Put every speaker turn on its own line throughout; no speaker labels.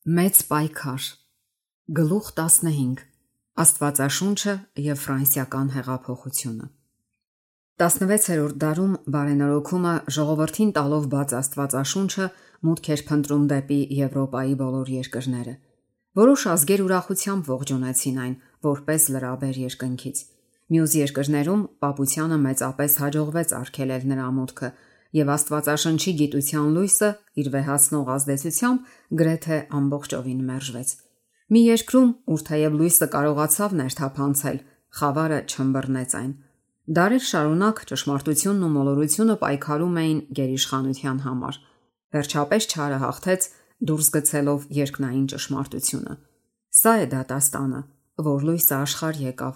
Մեծ պայքար Գլուխ 15 Աստվածաշունչը եւ ֆրանսիական հեղափոխությունը 16-րդ դարում բարենորոգումը ժողովրդին տալով բաց Աստվածաշունչը մուտք էր փնտրում դեպի Եվրոպայի բոլոր երկրները։ Որոշ ազգեր ուրախությամբ ողջունեցին այն որպես լրաբեր երկնքից։ Մյուս երկրներում պապությանը մեծապես հաջողվեց արգելել նրա մուտքը եւ Աստվածաշնչի գիտության լույսը իր վեհացնող ազդեցությամբ գրեթե ամբողջովին մերժվեց։ Մի երկրում, ուր թեև լույսը կարողացավ ներթափանցել, խավարը չըմբռնեց այն։ Դարեր շարունակ ճշմարտությունն ու մոլորությունը պայքարում էին գերիշխանության համար։ Վերջապես չարը հաղթեց, դուրս գցելով երկնային ճշմարտությունը։ Սա է դատաստանը, որ լույսը աշխարհ եկավ,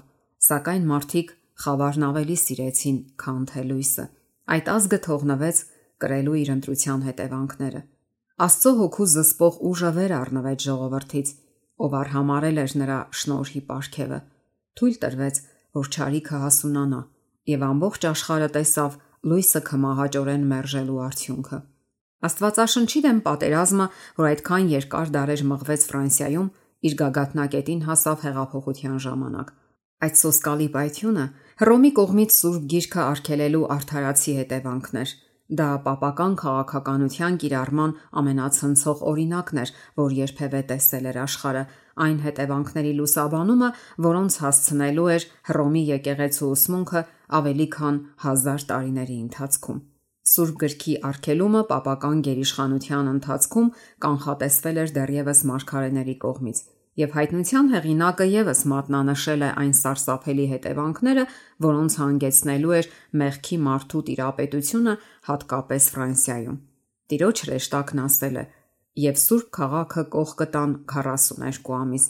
սակայն մարդիկ խավարն ավելի սիրեցին, քան թե լույսը։ Այդ ազգը թողնվեց կրելու իր ընտրության հետևանքները։ Աստծո հոգու զսպող ուժը վեր առնվեց ժողովրդից, ով արհամարել էր նրա շնորհի պարգևը։ Թույլ տրվեց, որ չարիքը հասունանա, եւ ամբողջ աշխարհը տեսավ լույսը քմահաճորեն մերժելու արդյունքը։ Աստվածաշնչի դեմ պատերազմը, որ այդքան երկար դարեր մղվեց Ֆրանսիայում, իր գագաթնակետին հասավ հեղափոխության ժամանակ։ Այդ սոսկալի պայթյունը Հռոմի կողմից Սուրբ Գիրքը արգելելու արդարացի հետևանքն էր։ Դա պապական քաղաքականության կիրառման ամենացնցող օրինակն էր, որ երբևէ տեսել էր աշխարհը, այն հետևանքների լուսաբանումը, որոնց հասցնելու էր Հռոմի եկեղեցու ուսմունքը ավելի քան 1000 տարիների ընթացքում։ Սուրբ Գրքի արգելումը պապական գերիշխանության ընթացքում կանխատեսվել էր դեռևս մարգարեների կողմից, եւ հայտնության հեղինակը եւս մատնանշել է այն սարսափելի հետևանքները, որոնց հանգեցնելու էր մեղքի մարդու տիրապետությունը հատկապես Ֆրանսիայում։ Տիրոջ հրեշտակն ասել է. «Եվ Սուրբ քաղաքը կող կտան 42 ամիս,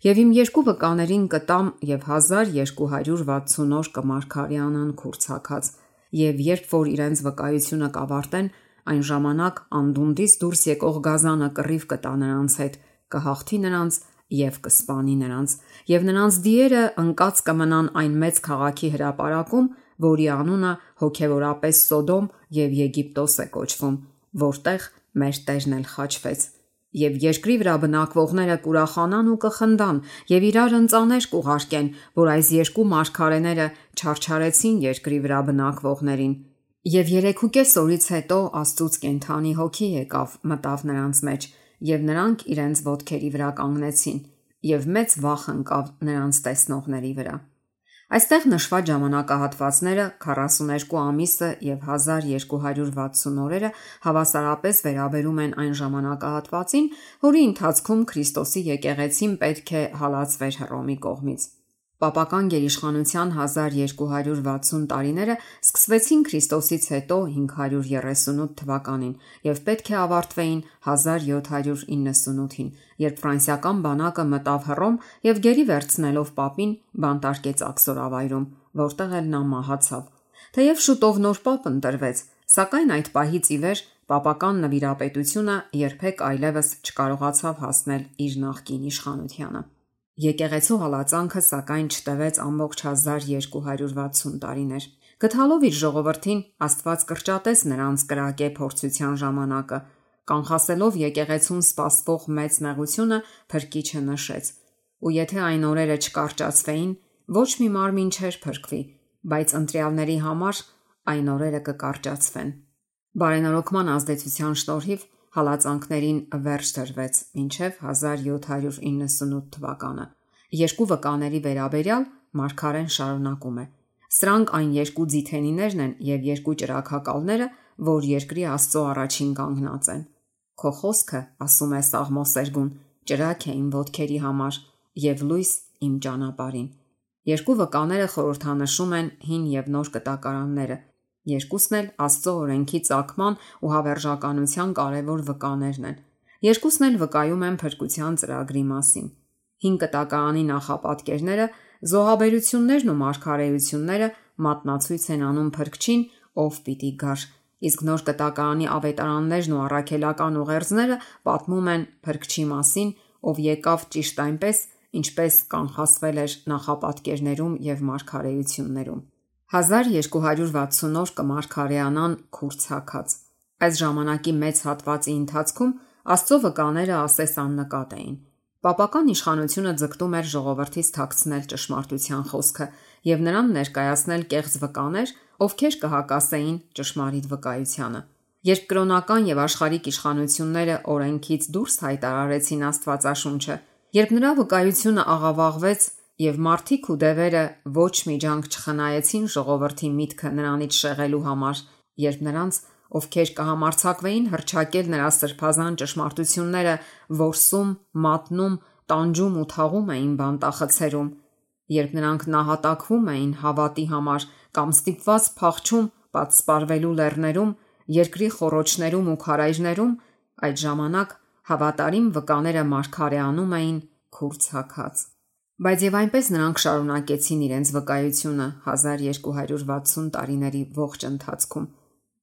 եւ իմ երկու վկաներին կտամ եւ 1260 օր կմարգարյանան քուրցակած, եւ երբ որ իրենց վկայությունը կավարտեն, այն ժամանակ անդունդից դուրս եկող գազանը կռիվ կտա նրանց հետ, կհաղթի նրանց եւ կսպանի նրանց, եւ նրանց դիերը ընկած կմնան այն մեծ քաղաքի հրապարակում, որի անունը հոգեվորապես Սոդոմ եւ Եգիպտոս է կոչվում, որտեղ մեր Տերն էլ խաչվեց։ Եվ երկրի վրա բնակվողները կուրախանան ու կխնդան եւ իրար ընծաներ կուղարկեն, որ այս երկու մարգարեները չարչարեցին երկրի վրա բնակվողներին։ Եվ 3.5 օրից հետո Աստծուց կենդանի հոգի եկավ, մտավ նրանց մեջ, եւ նրանք իրենց ոտքերի վրա կանգնեցին, եւ մեծ վախ ընկավ նրանց տեսնողների վրա»։ Այստեղ նշված ժամանակահատվածները 42 ամիսը եւ 1260 օրերը հավասարապես վերաբերում են այն ժամանակահատվածին, որի ընթացքում Քրիստոսի եկեղեցին պետք է հալածվեր Հռոմի կողմից։ Պապական գերիշխանության 1260 տարիները սկսվեցին Քրիստոսից հետո 538 թվականին եւ պետք է ավարտվեին 1798-ին, երբ ֆրանսիական բանակը մտավ Հռոմ եւ գերի վերցնելով պապին բանտարկեց Աքսորավայրում, որտեղ էլ նա մահացավ։ Թեև շուտով նոր պապ ընտրվեց, սակայն այդ պահից ի վեր պապական նվիրապետությունը երբեք այլևս չկարողացավ հասնել իր նախկին իշխանությանը։ Եկեղեցու հալածանքը սակայն չտևեց ամբողջ 1260 տարիներ։ Գտալով իր ժողովրդին, Աստված կրճատեց նրանց կրակե փորձության ժամանակը, կանխասելով եկեղեցուն սպասվող մեծ նեղությունը Փրկիչը նշեց։ Ու եթե այն օրերը չկարճացվեին, ոչ մի մարմին չէր փրկվի, բայց ընտրյալների համար այն օրերը կկարճացվեն։ Բարենորոգման ազդեցության շնորհիվ հալածանքներին վերջ դրվեց մինչև 1798 թվականը։ Երկու վկաների վերաբերյալ մարգարեն շարունակում է. «Սրանք այն երկու ձիթենիներն են եւ երկու ճրագակալները, որ երկրի Աստծո առաջին կանգնած են։ Քո խոսքը, ասում է Սաղմոսերգուն, ճրագ է իմ ոտքերի համար եւ լույս իմ ճանապարհին»։ Երկու վկաները խորհրդանշում են հին եւ նոր կտակարանները։ Երկուսն էլ Աստծո օրենքի ծագման ու հավերժականության կարևոր վկաներն են։ Երկուսն էլ վկայում են փրկության ծրագրի մասին։ Հին կտակարանի նախապատկերները, զոհաբերություններն ու մարգարեությունները մատնացույց են անում Փրկչին, ով պիտի գար, իսկ նոր կտակարանի ավետարաններն ու առաքելական ուղերձները պատմում են Փրկչի մասին, ով եկավ ճիշտ այնպես, ինչպես կանխասվել էր նախապատկերներում եւ մարգարեություններում։ 1260 օր կմարգարեանան քուրցակած։ Այս ժամանակի մեծ հատվածի ընթացքում Աստծո վկաները ասես աննկատ էին։ Պապական իշխանությունը ձգտում էր ժողովրդից թաքցնել ճշմարտության խոսքը եւ նրան ներկայացնել կեղծ վկաներ, ովքեր կհակասեին ճշմարիտ վկայությանը։ Երբ կրոնական եւ աշխարհիկ իշխանությունները օրենքից դուրս հայտարարեցին Աստվածաշունչը, երբ նրա վկայությունը աղավաղվեց եւ մարդիկ ու դևերը ոչ մի ջանք չխնայեցին ժողովրդի միտքը նրանից շեղելու համար, երբ նրանց, ովքեր կհամարձակվեին հռչակել նրա սրբազան ճշմարտությունները, որսում, մատնում, տանջում ու թաղում էին բանտախցերում, երբ նրանք նահատակվում էին հավատի համար կամ ստիպված փախչում պատսպարվելու լեռներում, երկրի խոռոչներում ու քարայրներում, այդ ժամանակ հավատարիմ վկաները մարգարեանում էին քուրձ-հագած։ Բայց եւ այնպես նրանք շարունակեցին իրենց վկայությունը 1260 տարիների ողջ ընթացքում։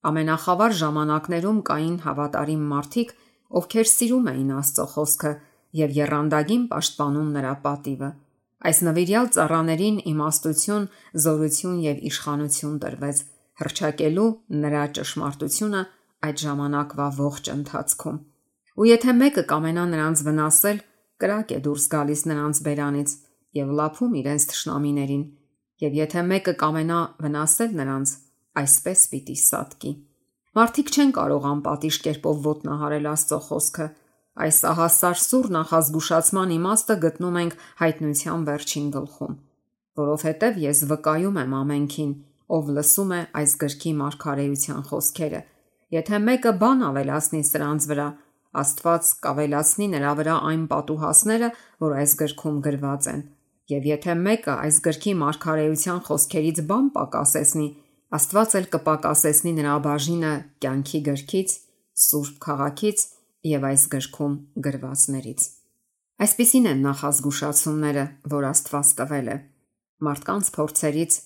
Ամենախավար ժամանակներում կային հավատարիմ մարդիկ, ովքեր սիրում էին Աստծո խոսքը եւ եռանդագին պաշտպանում նրա պատիվը։ Այս նվիրյալ ծառաներին իմաստություն, զորություն եւ իշխանություն տրվեց հռչակելու նրա ճշմարտությունը այդ ժամանակվա ողջ ընթացքում։ Ու եթե մեկը կամենա նրանց վնասել, կրակ է դուրս գալիս նրանց բերանից եւ լափում իրենց թշնամիներին, եւ եթե մեկը կամենա վնասել նրանց, այսպես պիտի սատկի։ Մարդիկ չեն կարող անպատիժ կերպով ոտնահարել Աստծո խոսքը։ Այս ահասար սուր նախազգուշացման իմաստը գտնում ենք Հայտնության վերջին գլխում, որովհետև ես վկայում եմ ամենքին, ով լսում է այս գրքի մարգարեության խոսքերը։ Եթե մեկը բան ավելացնի սրանց վրա, Աստված կավելացնի նրա վրա այն պատուհասները, որ այս գրքում գրված են։ Եվ եթե մեկը այս գրքի մարգարեության խոսքերից բան պակասեցնի, Աստված էլ կպակասեցնի նրա բաժինը կյանքի գրքից, սուրբ քաղաքից եւ այս գրքում գրվածներից։ Այսպիսին են նախազգուշացումները, որ Աստված տվել է մարդկանց փորձերից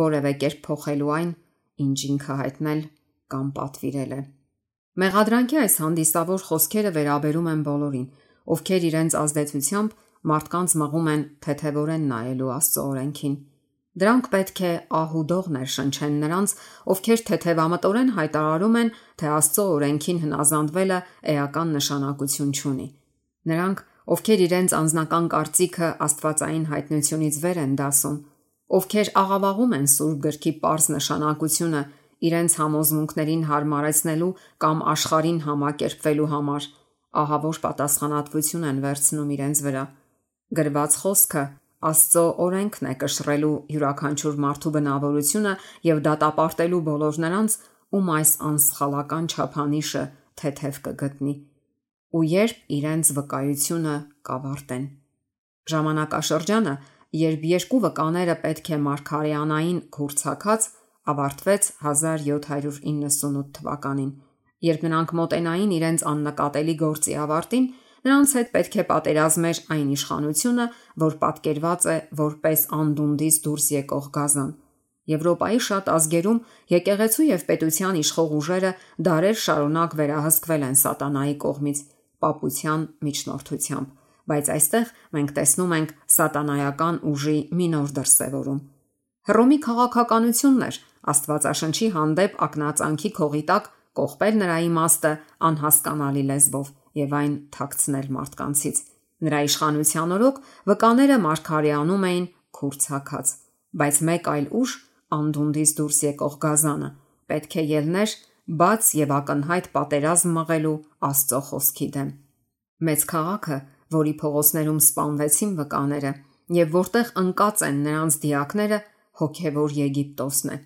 որևէ կերպ փոխելու այն, ինչ ինքը հայտնել կամ պատվիրել է։ Մեղադրանքի այս հանդիսավոր խոսքերը վերաբերում են բոլորին, ովքեր իրենց ազդեցությամբ մարդկանց մղում են թեթևորեն նայելու Աստծո օրենքին։ Դրանք պետք է ահուդող ներշնչեն նրանց, ովքեր թեթևամտորեն հայտարարում են, թե Աստծո օրենքին հնազանդվելը էական նշանակություն չունի։ Նրանք, ովքեր իրենց անձնական կարծիքը աստվածային հայտնությունից վեր են դասում, ովքեր աղավաղում են Սուրբ գրքի պարզ նշանակությունը իրենց համոզմունքներին հարմարեցնելու կամ աշխարհին համակերպվելու համար, ահավոր պատասխանատվություն են վերցնում իրենց վրա։ Գրված խոսքը Աստծո օրենքն է կշռելու յուրաքանչյուր մարդու բնավորությունը եւ դատապարտելու բոլոր նրանց, ում այս անսխալական չափանիշը թեթև կգտնի, ու երբ իրենց վկայությունը կավարտեն։ Ժամանակաշրջանը, երբ երկու վկաները պետք է մարգարեանային քուրձ-հագած, ավարտվեց 1798 թվականին, երբ նրանք մոտենային իրենց աննկատելի գործի ավարտին, նրանց հետ պետք է պատերազմեր այն իշխանությունը, որ պատկերված է որպես անդունդից դուրս եկող գազան։ Եվրոպայի շատ ազգերում եկեղեցու եւ պետության իշխող ուժերը դարեր շարունակ վերահսկվել են սատանայի կողմից պապության միջնորդությամբ, բայց այստեղ մենք տեսնում ենք սատանայական ուժի մի նոր դրսևորում։ Հռոմի քաղաքականությունն էր Աստվածաշնչի հանդեպ ակնածանքի քողի տակ կողպել նրա իմաստը անհասկանալի լեզվով եւ այն թաքցնել մարդկանցից։ Նրա իշխանության օրոք վկաները մարգարեանում էին քուրձ-հագած, բայց մեկ այլ ուժ, անդունդից դուրս եկող գազանը, պետք է ելներ բաց եւ ակնհայտ պատերազմ մղելու Աստծո խոսքի դեմ։ Մեծ քաղաքը, որի փողոցներում սպանվեցին վկաները եւ որտեղ ընկած են նրանց դիակները, հոգևոր Եգիպտոսն է։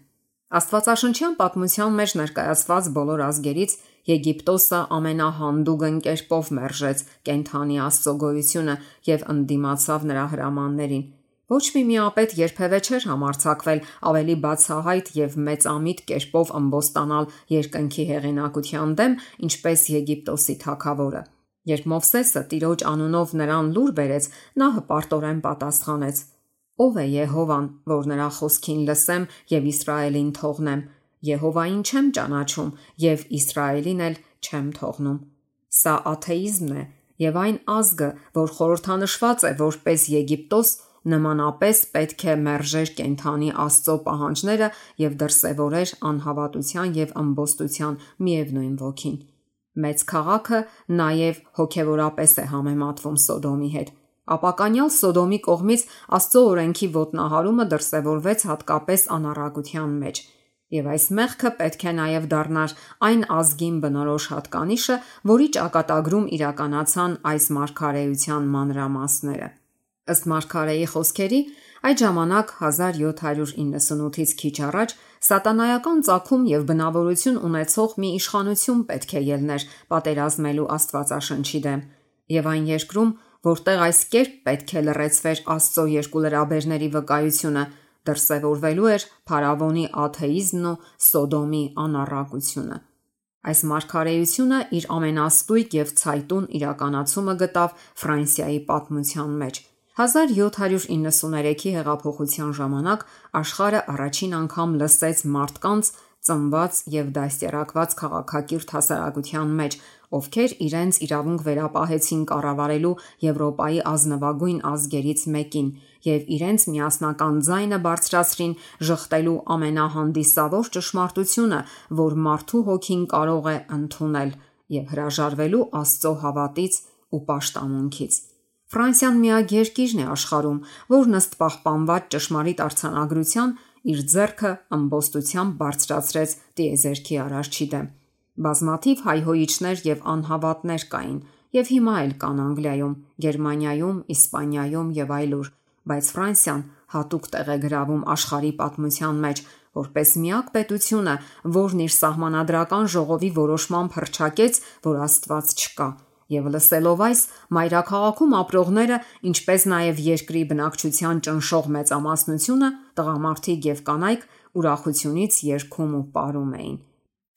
Աստվածաշնչյան պատմության մեջ ներկայացված բոլոր ազգերից Եգիպտոսը ամենահանդուգն կերպով մերժեց կենթանի Աստծո գոյությունը եւ ընդդիմացավ նրա հրամաններին։ Ոչ մի միապետ երբևէ չէր համարձակվել ավելի բացահայտ եւ մեծամիտ կերպով ըմբոստանալ երկնքի հեղինակության դեմ, ինչպես Եգիպտոսի թագավորը։ Երբ Մովսեսը Տիրոջ անունով նրան լուր բերեց, նա հպարտորեն պատասխանեց. Ո՞վ է Եհովան, որ նրա խոսքին լսեմ եւ Իսրայելին թողնեմ։ Եհովային չեմ ճանաչում եւ Իսրայելին էլ չեմ թողնում։ Սա աթեիզմն է եւ այն ազգը, որ խորհրդանշված է որպես Եգիպտոս, նմանապես պետք է մերժեր կենթանի Աստծո պահանջները եւ դրսևորեր անհավատության եւ ըմբոստության միևնույն ոգին։ Մեծ քաղաքը նաև հոգևորապես է համեմատվում Սոդոմի հետ։ Ապականյալ Սոդոմի կողմից Աստծո օրենքի ոտնահարումը դրսևորվեց հատկապես անառակության մեջ, եւ այս մեղքը պետք է նաև դառնար այն ազգին բնորոշ հատկանիշը, որի ճակատագրում իրականացան այս մարգարեության մանրամասները։ Ըստ մարգարեի խոսքերի, այդ ժամանակ 1798-ից քիչ առաջ սատանայական ծագում եւ բնավորություն ունեցող մի իշխանություն պետք է ելներ պատերազմելու Աստվածաշնչի դեմ, եւ այն երկրում, որտեղ այս կերպ պետք է լրացվեր Աստծո երկու լրաբերների վկայությունը, դրսևորվելու էր փարավոնի աթեիզմն ու Սոդոմի անառակությունը։ Այս մարգարեությունը իր ամենաստույգ եւ ցայտուն իրականացումը գտավ Ֆրանսիայի պատմության մեջ։ 1793-ի հեղափոխության ժամանակ աշխարհը առաջին անգամ լսեց մարդկանց ծնված եւ դաստիարակված քաղաքակիրթ հասարակության մեջ, ովքեր իրենց իրավունք վերապահեցին կառավարելու Եվրոպայի ազնվագույն ազգերից մեկին եւ իրենց միասնական ձայնը բարձրացրին ժխտելու ամենահանդիսավոր ճշմարտությունը, որ մարդու հոգին կարող է ընդունել եւ հրաժարվելու Աստծո հավատից ու պաշտամունքից։ Ֆրանսիան միակ երկիրն է աշխարհում, որն ըստ պահպանված ճշմարիտ արձանագրության իր ձեռքը ըմբոստությամբ բարձրացրեց տիեզերքի արարչի դեմ։ Բազմաթիվ հայհոյիչներ եւ անհավատներ կային, եւ հիմա էլ կան Անգլիայում, Գերմանիայում, Իսպանիայում եւ այլուր, բայց Ֆրանսիան հատուկ տեղ է գրավում աշխարհի պատմության մեջ, որպես միակ պետությունը, որն իր սահմանադրական ժողովի որոշմամբ հռչակեց, որ Աստված չկա։ Եվ լսելով այս, մայրաքաղաքում ապրողները, ինչպես նաև երկրի բնակչության ճնշող մեծամասնությունը, տղամարդիկ եւ կանայք ուրախությունից երգում ու պարում էին։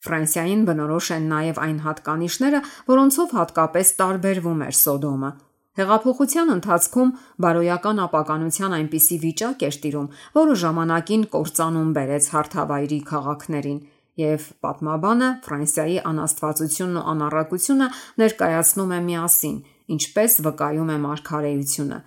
Ֆրանսիային բնորոշ են նաև այն հատկանիշները, որոնցով հատկապես տարբերվում էր Սոդոմը։ Հեղափոխության ընթացքում բարոյական ապականության այնպիսի վիճակ էր տիրում, որը ժամանակին կործանում բերեց հարթավայրի քաղաքներին, եւ պատմաբանը Ֆրանսիայի անաստվածությունն ու անառակությունը ներկայացնում է միասին, ինչպես վկայում է մարգարեությունը։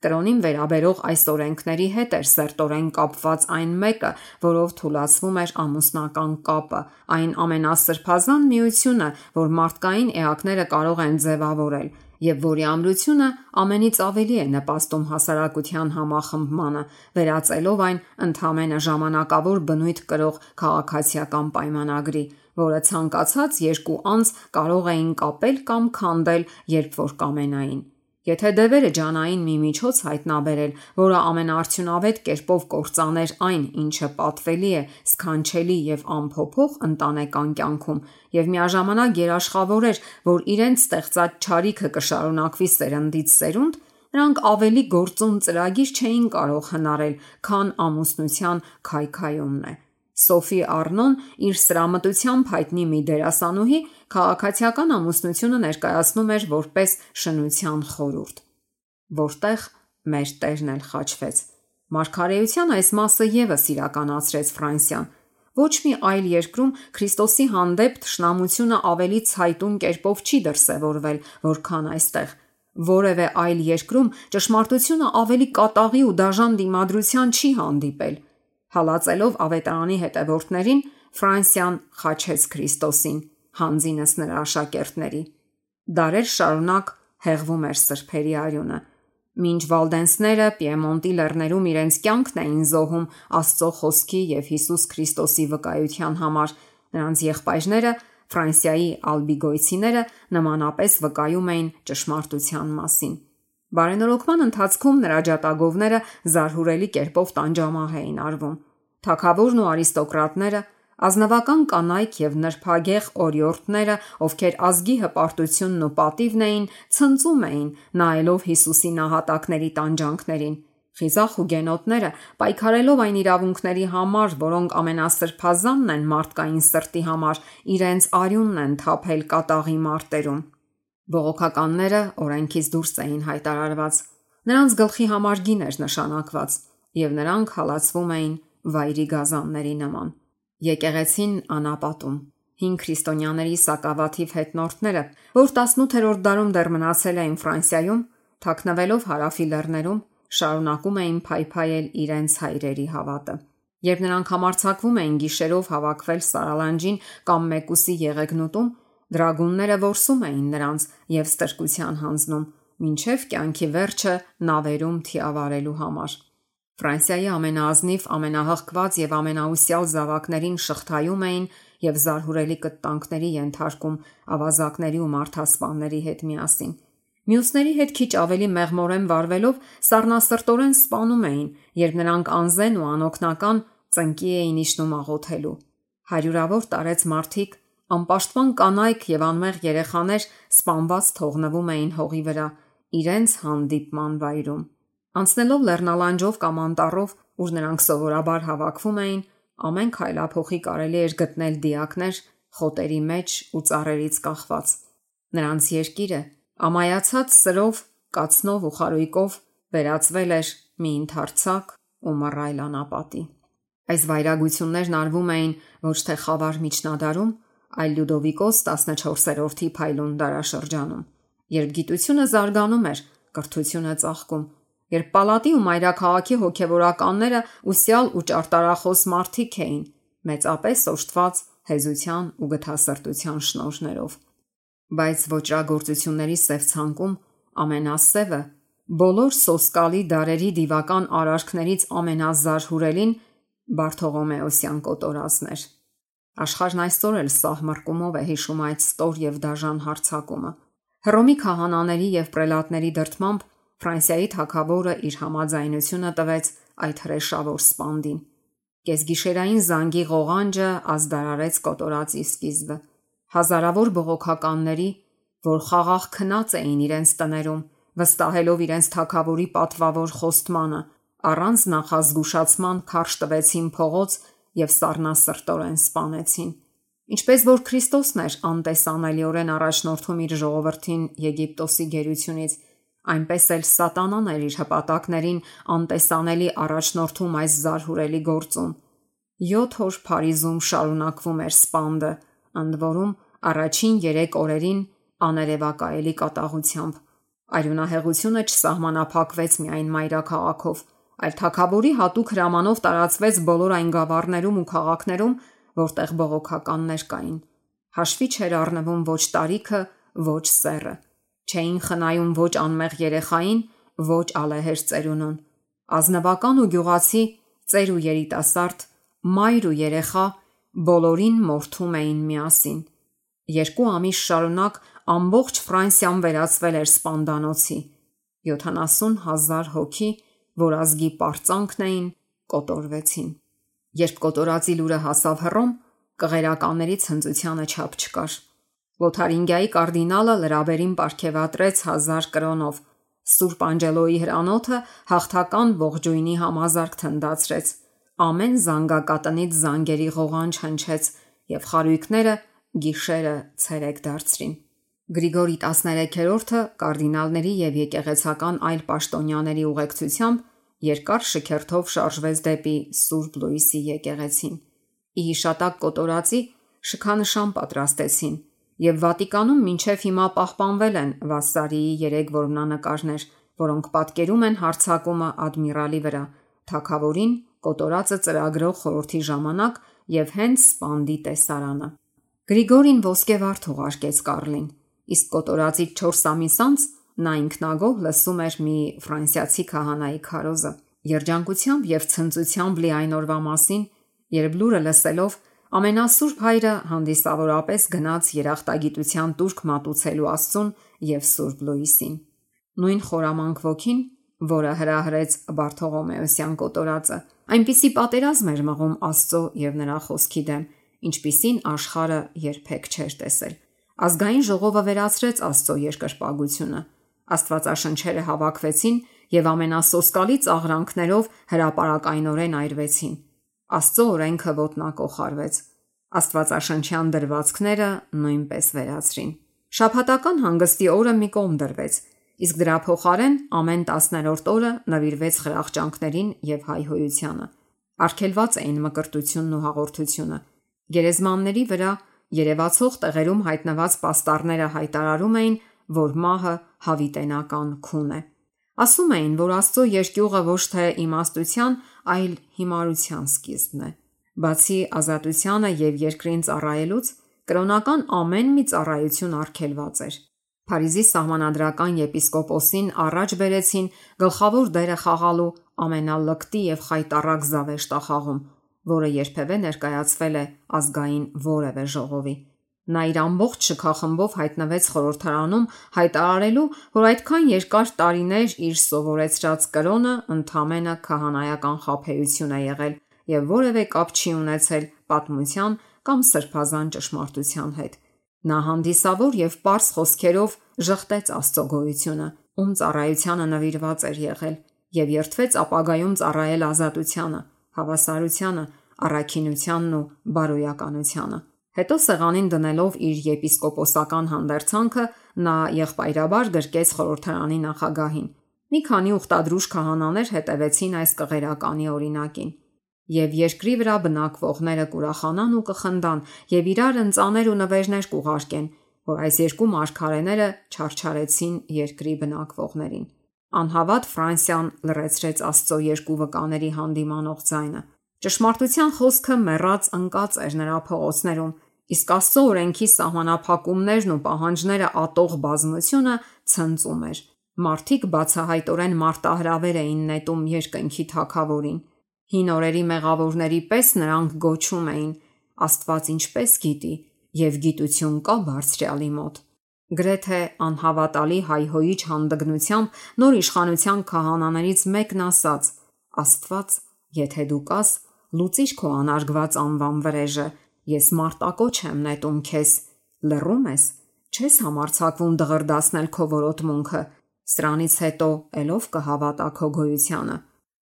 Կրոնին վերաբերող այս օրենքների հետ էր սերտորեն կապված այն մեկը, որով թուլացվում էր ամուսնական կապը, այն ամենասրբազան միությունը, որ մարդկային էակները կարող են ձևավորել, եւ որի ամրությունը ամենից ավելի է նպաստում հասարակության համախմբմանը, վերածելով այն ընդհանրապես ժամանակավոր բնույթ կրող քաղաքացիական պայմանագրի, որը ցանկացած երկու անձ կարող էին կապել կամ քանդել, երբ որ կամենային։ Եթե դևերը ջանային մի միջոց հայտնաբերել, որը ամենաարդյունավետ կերպով կործաներ այն, ինչը պատվելի է, սքանչելի եւ անփոփոխ ընտանեկան կյանքում, եւ միաժամանակ երաշխավորեր, որ իրենց ստեղծած չարիքը կշարունակվի սերնդից սերունդ, նրանք ավելի գործուն ծրագիր չէին կարող հնարել, քան ամուսնության քայքայումն է։ Սոֆի Արնոն իր սրամտությամբ հայտնի մի դերասանուհի քաղաքացիական ամուսնությունը ներկայացնում էր որպես շնության խորհուրդ, որտեղ մեր Տերն էլ խաչվեց։ Մարգարեության այս մասը եւս իրականացրեց Ֆրանսիան։ Ոչ մի այլ երկրում Քրիստոսի հանդեպ թշնամությունը ավելի ցայտուն կերպով չի դրսևորվել, որքան այստեղ։ Որևէ այլ երկրում ճշմարտությունը ավելի կատաղի ու դաժան դիմադրության չի հանդիպել։ Հալածելով ավետարանի հետևորդներին, Ֆրանսիան խաչեց Քրիստոսին, հանձինս նրա աշակերտների։ Դարեր շարունակ հեղվում էր սրբերի արյունը։ Մինչ վալդենսները Պիեմոնտի լեռներում իրենց կյանքն էին զոհում Աստծո խոսքի եւ Հիսուս Քրիստոսի վկայության համար, նրանց եղբայրները Ֆրանսիայի ալբիգոյցիները նմանապես վկայում էին ճշմարտության մասին։ Բարենորոգման ընթացքում նրա ջատագովները զարհուրելի կերպով տանջամահ էին արվում։ Թագավորն ու արիստոկրատները, ազնվական կանայք եւ նրբագեղ օրիորդները, ովքեր ազգի հպարտությունն ու պատիվն էին, ցնծում էին, նայելով Հիսուսի նահատակների տանջանքներին։ Խիզախ հուգենոտները, պայքարելով այն իրավունքների համար, որոնք ամենասրբազանն են մարդկային սրտի համար, իրենց արյունն են թափել կատաղի մարտերում։ Բողոքականները օրենքից դուրս էին հայտարարված։ Նրանց գլխի համար գին էր նշանակված, եւ նրանք հալածվում էին վայրի գազանների նման։ Եկեղեցին անապատում։ Հին քրիստոնյաների սակավաթիվ հետնորդները, որ 18-րդ դարում դեռ մնացել էին Ֆրանսիայում, թաքնվելով հարավի լեռներում, շարունակում էին փայփայել իրենց հայրերի հավատը։ Երբ նրանք համարձակվում էին գիշերով հավաքվել Սարալանջին կամ Մեկուսի եղեգնուտում, Դրագունները որսում էին նրանց եւ ստրկության հանձնում, մինչև կյանքի վերջը նավերում թիավարելու համար։ Ֆրանսիայի ամենաազնիվ, ամենահղկված եւ ամենաուսյալ զավակներին շղթայում էին եւ զարհուրելի կտանքների ենթարկում ավազակների ու մարդասպանների հետ միասին։ Մյուսների հետ քիչ ավելի մեղմորեն վարվելով սառնասրտորեն սպանում էին, երբ նրանք անզեն ու անօգնական ծնկի էին իջնում աղոթելու։ Հարյուրավոր տարեց մարդիկ, անպաշտպան կանայք եւ անմեղ երեխաներ սպանված թողնվում էին հողի վրա, իրենց հանդիպման վայրում։ Անցնելով լեռնալանջով կամ անտառով, ուր նրանք սովորաբար հավաքվում էին, ամեն քայլափոխի կարելի էր գտնել դիակներ խոտերի մեջ ու ծառերից կախված։ Նրանց երկիրը ամայացած սրով, կացնով ու խարույկով վերածվել էր մի ընդարձակ ու մռայլ անապատի։ Այս վայրագություններն արվում էին ոչ թե խավար միջնադարում, այլ Լյուդովիկոս 14-րդի փայլուն դարաշրջանում, երբ գիտությունը զարգանում էր, կրթությունը ծաղկում, երբ պալատի ու մայրաքաղաքի հոգևորականները ուսյալ ու ճարտարախոս մարդիկ էին, մեծապես օժտված հեզության ու գթասրտության շնորհներով։ Բայց ոճրագործությունների սև ցանկում ամենասևը, բոլոր սոսկալի դարերի դիվական արարքներից ամենազարհուրելին Բարթողոմեոսյան կոտորածն էր։ Աշխարհն այսօր էլ սահմռկումով է հիշում այդ ստոր եւ դաժան հարձակումը։ Հռոմի քահանաների եւ պրելատների դրդմամբ Ֆրանսիայի թագավորը իր համաձայնությունը տվեց այդ հրեշավոր սպանդին։ Կեսգիշերային զանգի ղողանջը ազդարարեց կոտորածի սկիզբը։ Հազարավոր բողոքականների, որ խաղաղ քնած էին իրենց տներում, վստահելով իրենց թագավորի պատվավոր խոստմանը, առանց նախազգուշացման քարշ տվեցին փողոց եւ սառնասրտորեն սպանեցին։ Ինչպես որ Քրիստոսն էր անտեսանելիորեն առաջնորդում իր ժողովրդին Եգիպտոսի գերությունից, այնպես էլ Սատանան էր իր հպատակներին անտեսանելի առաջնորդում այս զարհուրելի գործում։ 7 օր Փարիզում շարունակվում էր սպանդը, ընդ որում առաջին 3 օրերին աներևակայելի կատաղությամբ։ Արյունահեղությունը չսահմանափակվեց միայն մայրաքաղաքով, այլ թագավորի հատուկ հրամանով տարածվեց բոլոր այն գավառներում ու քաղաքներում, որտեղ բողոքականներ կային։ Հաշվի չէր առնվում ոչ տարիքը, ոչ սեռը։ Չէին խնայում ոչ անմեղ երեխային, ոչ ալեհեր ծերունուն։ Ազնվական ու գյուղացի, ծեր ու երիտասարդ, մայր ու երեխա բոլորին մորթում էին միասին։ 2 ամիս շարունակ ամբողջ Ֆրանսիան վերածվել էր սպանդանոցի։ 70,000 հոգի, որ ազգի պարծանքն էին, կոտորվեցին։ Երբ կոտորածի լուրը հասավ Հռոմ, կղերականների ցնծությանը չափ չկար։ Լոթարինգիայի կարդինալը լրաբերին պարգևատրեց 1000 կրոնով։ Սուրբ Անջելոյի հրանոթը հաղթական ողջույնի համազարկ թնդացրեց։ Ամեն զանգակատնից զանգերի ղողանջ հնչեց եւ խարույկները գիշերը ցերեկ դարձրին։ Գրիգորի 13-րդը կարդինալների եւ եկեղեցական այլ պաշտոնյաների ուղեկցությամբ երկար շքերթով շարժվեց դեպի Սուրբ Լուիսի եկեղեցին։ Ի հիշատակ կոտորածի շքանշան պատրաստեցին եւ Վատիկանում մինչև հիմա պահպանվել են Վասարիի 3 որմնանկարներ, որոնք պատկերում են հարձակումը ադմիրալի վրա, թագավորին կոտորածը ծրագրող խորհրդի ժամանակ եւ հենց սպանդի տեսարանը։ Գրիգորին ոսկե վարդ ուղարկեց Կարլին, իսկ կոտորածի 4 ամիս անց նա ինքնագոհ լսում էր մի ֆրանսիացի քահանայի քարոզը։ Երջանկությամբ եւ ցնծությամբ լի այն օրվա մասին, երբ լուրը լսելով ամենասուրբ հայրը հանդիսավորապես գնաց երախտագիտության տուրք մատուցելու Աստծուն եւ Սուրբ Լուիսին։ Նույն խորամանկ ոգին, որը հրահրեց Բարթողոմեոսյան կոտորածը, այնպիսի պատերազմ էր մղում Աստծո եւ նրա խոսքի դեմ, ինչպիսին աշխարհը երբեք չէր տեսել։ Ազգային ժողովը վերացրեց Աստծո երկրպագությունը։ Աստվածաշնչերը հավաքվեցին եւ ամենասոսկալի ծաղրանքներով հրապարակայնորեն այրվեցին։ Աստծո օրենքը ոտնակոխարվեց։ Աստվածաշնչյան դրվածքները նույնպես վերացրին։ Շաբաթական հանգստի օրը մի կողմ դրվեց, իսկ դրա փոխարեն ամեն 10-րդ օրը նվիրվեց խրախճանքներին եւ հայհոյությանը։ Արգելված էին մկրտությունն ու հաղորդությունը։ Գերեզմանների վրա երևացող տեղերում հայտնված պաստառները հայտարարում էին, որ մահը հավիտենական քուն է։ Ասում էին, որ Աստծո երկյուղը ոչ թե իմաստության, այլ հիմարության սկիզբն է։ Բացի ազատությանը եւ երկրին ծառայելուց, կրոնական ամեն մի ծառայություն արգելված էր։ Փարիզի սահմանադրական եպիսկոպոսին առաջ բերեցին գլխավոր դերը խաղալու ամենալկտի եւ խայտառակ զավեշտախաղում, որը երբևէ ներկայացվել է ազգային որևէ ժողովի։ Նա իր ամբողջ շքախմբով հայտնվեց խորհրդարանում հայտարարելու, որ այդքան երկար տարիներ իր սովորեցրած կրոնը ընդամենը քահանայական խաբեություն է եղել եւ որևէ կապ չի ունեցել պատմության կամ սրբազան ճշմարտության հետ։ Նա հանդիսավոր եւ պարզ խոսքերով ժխտեց Աստծո գոյությունը, ում ծառայությանը նվիրված էր եղել, եւ երդվեց ապագայում ծառայել ազատությանը, հավասարությանը, առաքինությանն ու բարոյականությանը։ Հետո սեղանին դնելով իր եպիսկոպոսական հանդերձանքը, նա եղբայրաբար գրկեց խորհրդարանի նախագահին։ Մի քանի ուխտադրուժ քահանաներ հետևեցին այս կղերականի օրինակին, եւ երկրի վրա բնակվողները կուրախանան ու կխնդան եւ իրար ընծաներ ու նվերներ կուղարկեն, որ այս երկու մարգարեները չարչարեցին երկրի բնակվողներին։ Անհավատ Ֆրանսիան լրացրեց Աստծո երկու վկաների հանդիմանող ձայնը։ Ճշմարտության խոսքը մեռած ընկած էր նրա փողոցներում, իսկ Աստծո օրենքի սահմանափակումներն ու պահանջները ատող բազմությունը ցնծում էր։ Մարդիկ բացահայտորեն մարտահրավեր էին նետում երկնքի թագավորին։ Հին օրերի մեղավորների պես նրանք գոչում էին. Աստված ինչպես գիտի, եւ գիտություն կա բարձրյալի մոտ։ Գրեթե անհավատալի հայհոյիչ հանդգնությամբ նոր իշխանության քահանաներից մեկն ասաց. Աստված, եթե դու կաս, լուծիր քո անարգված անվան վրեժը, ես մարտակոչ եմ նետում քեզ, լռում ես, չես համարձակվում դղրդացնել քո որոտմունքը, սրանից հետո ելով կհավատա քո գոյությանը։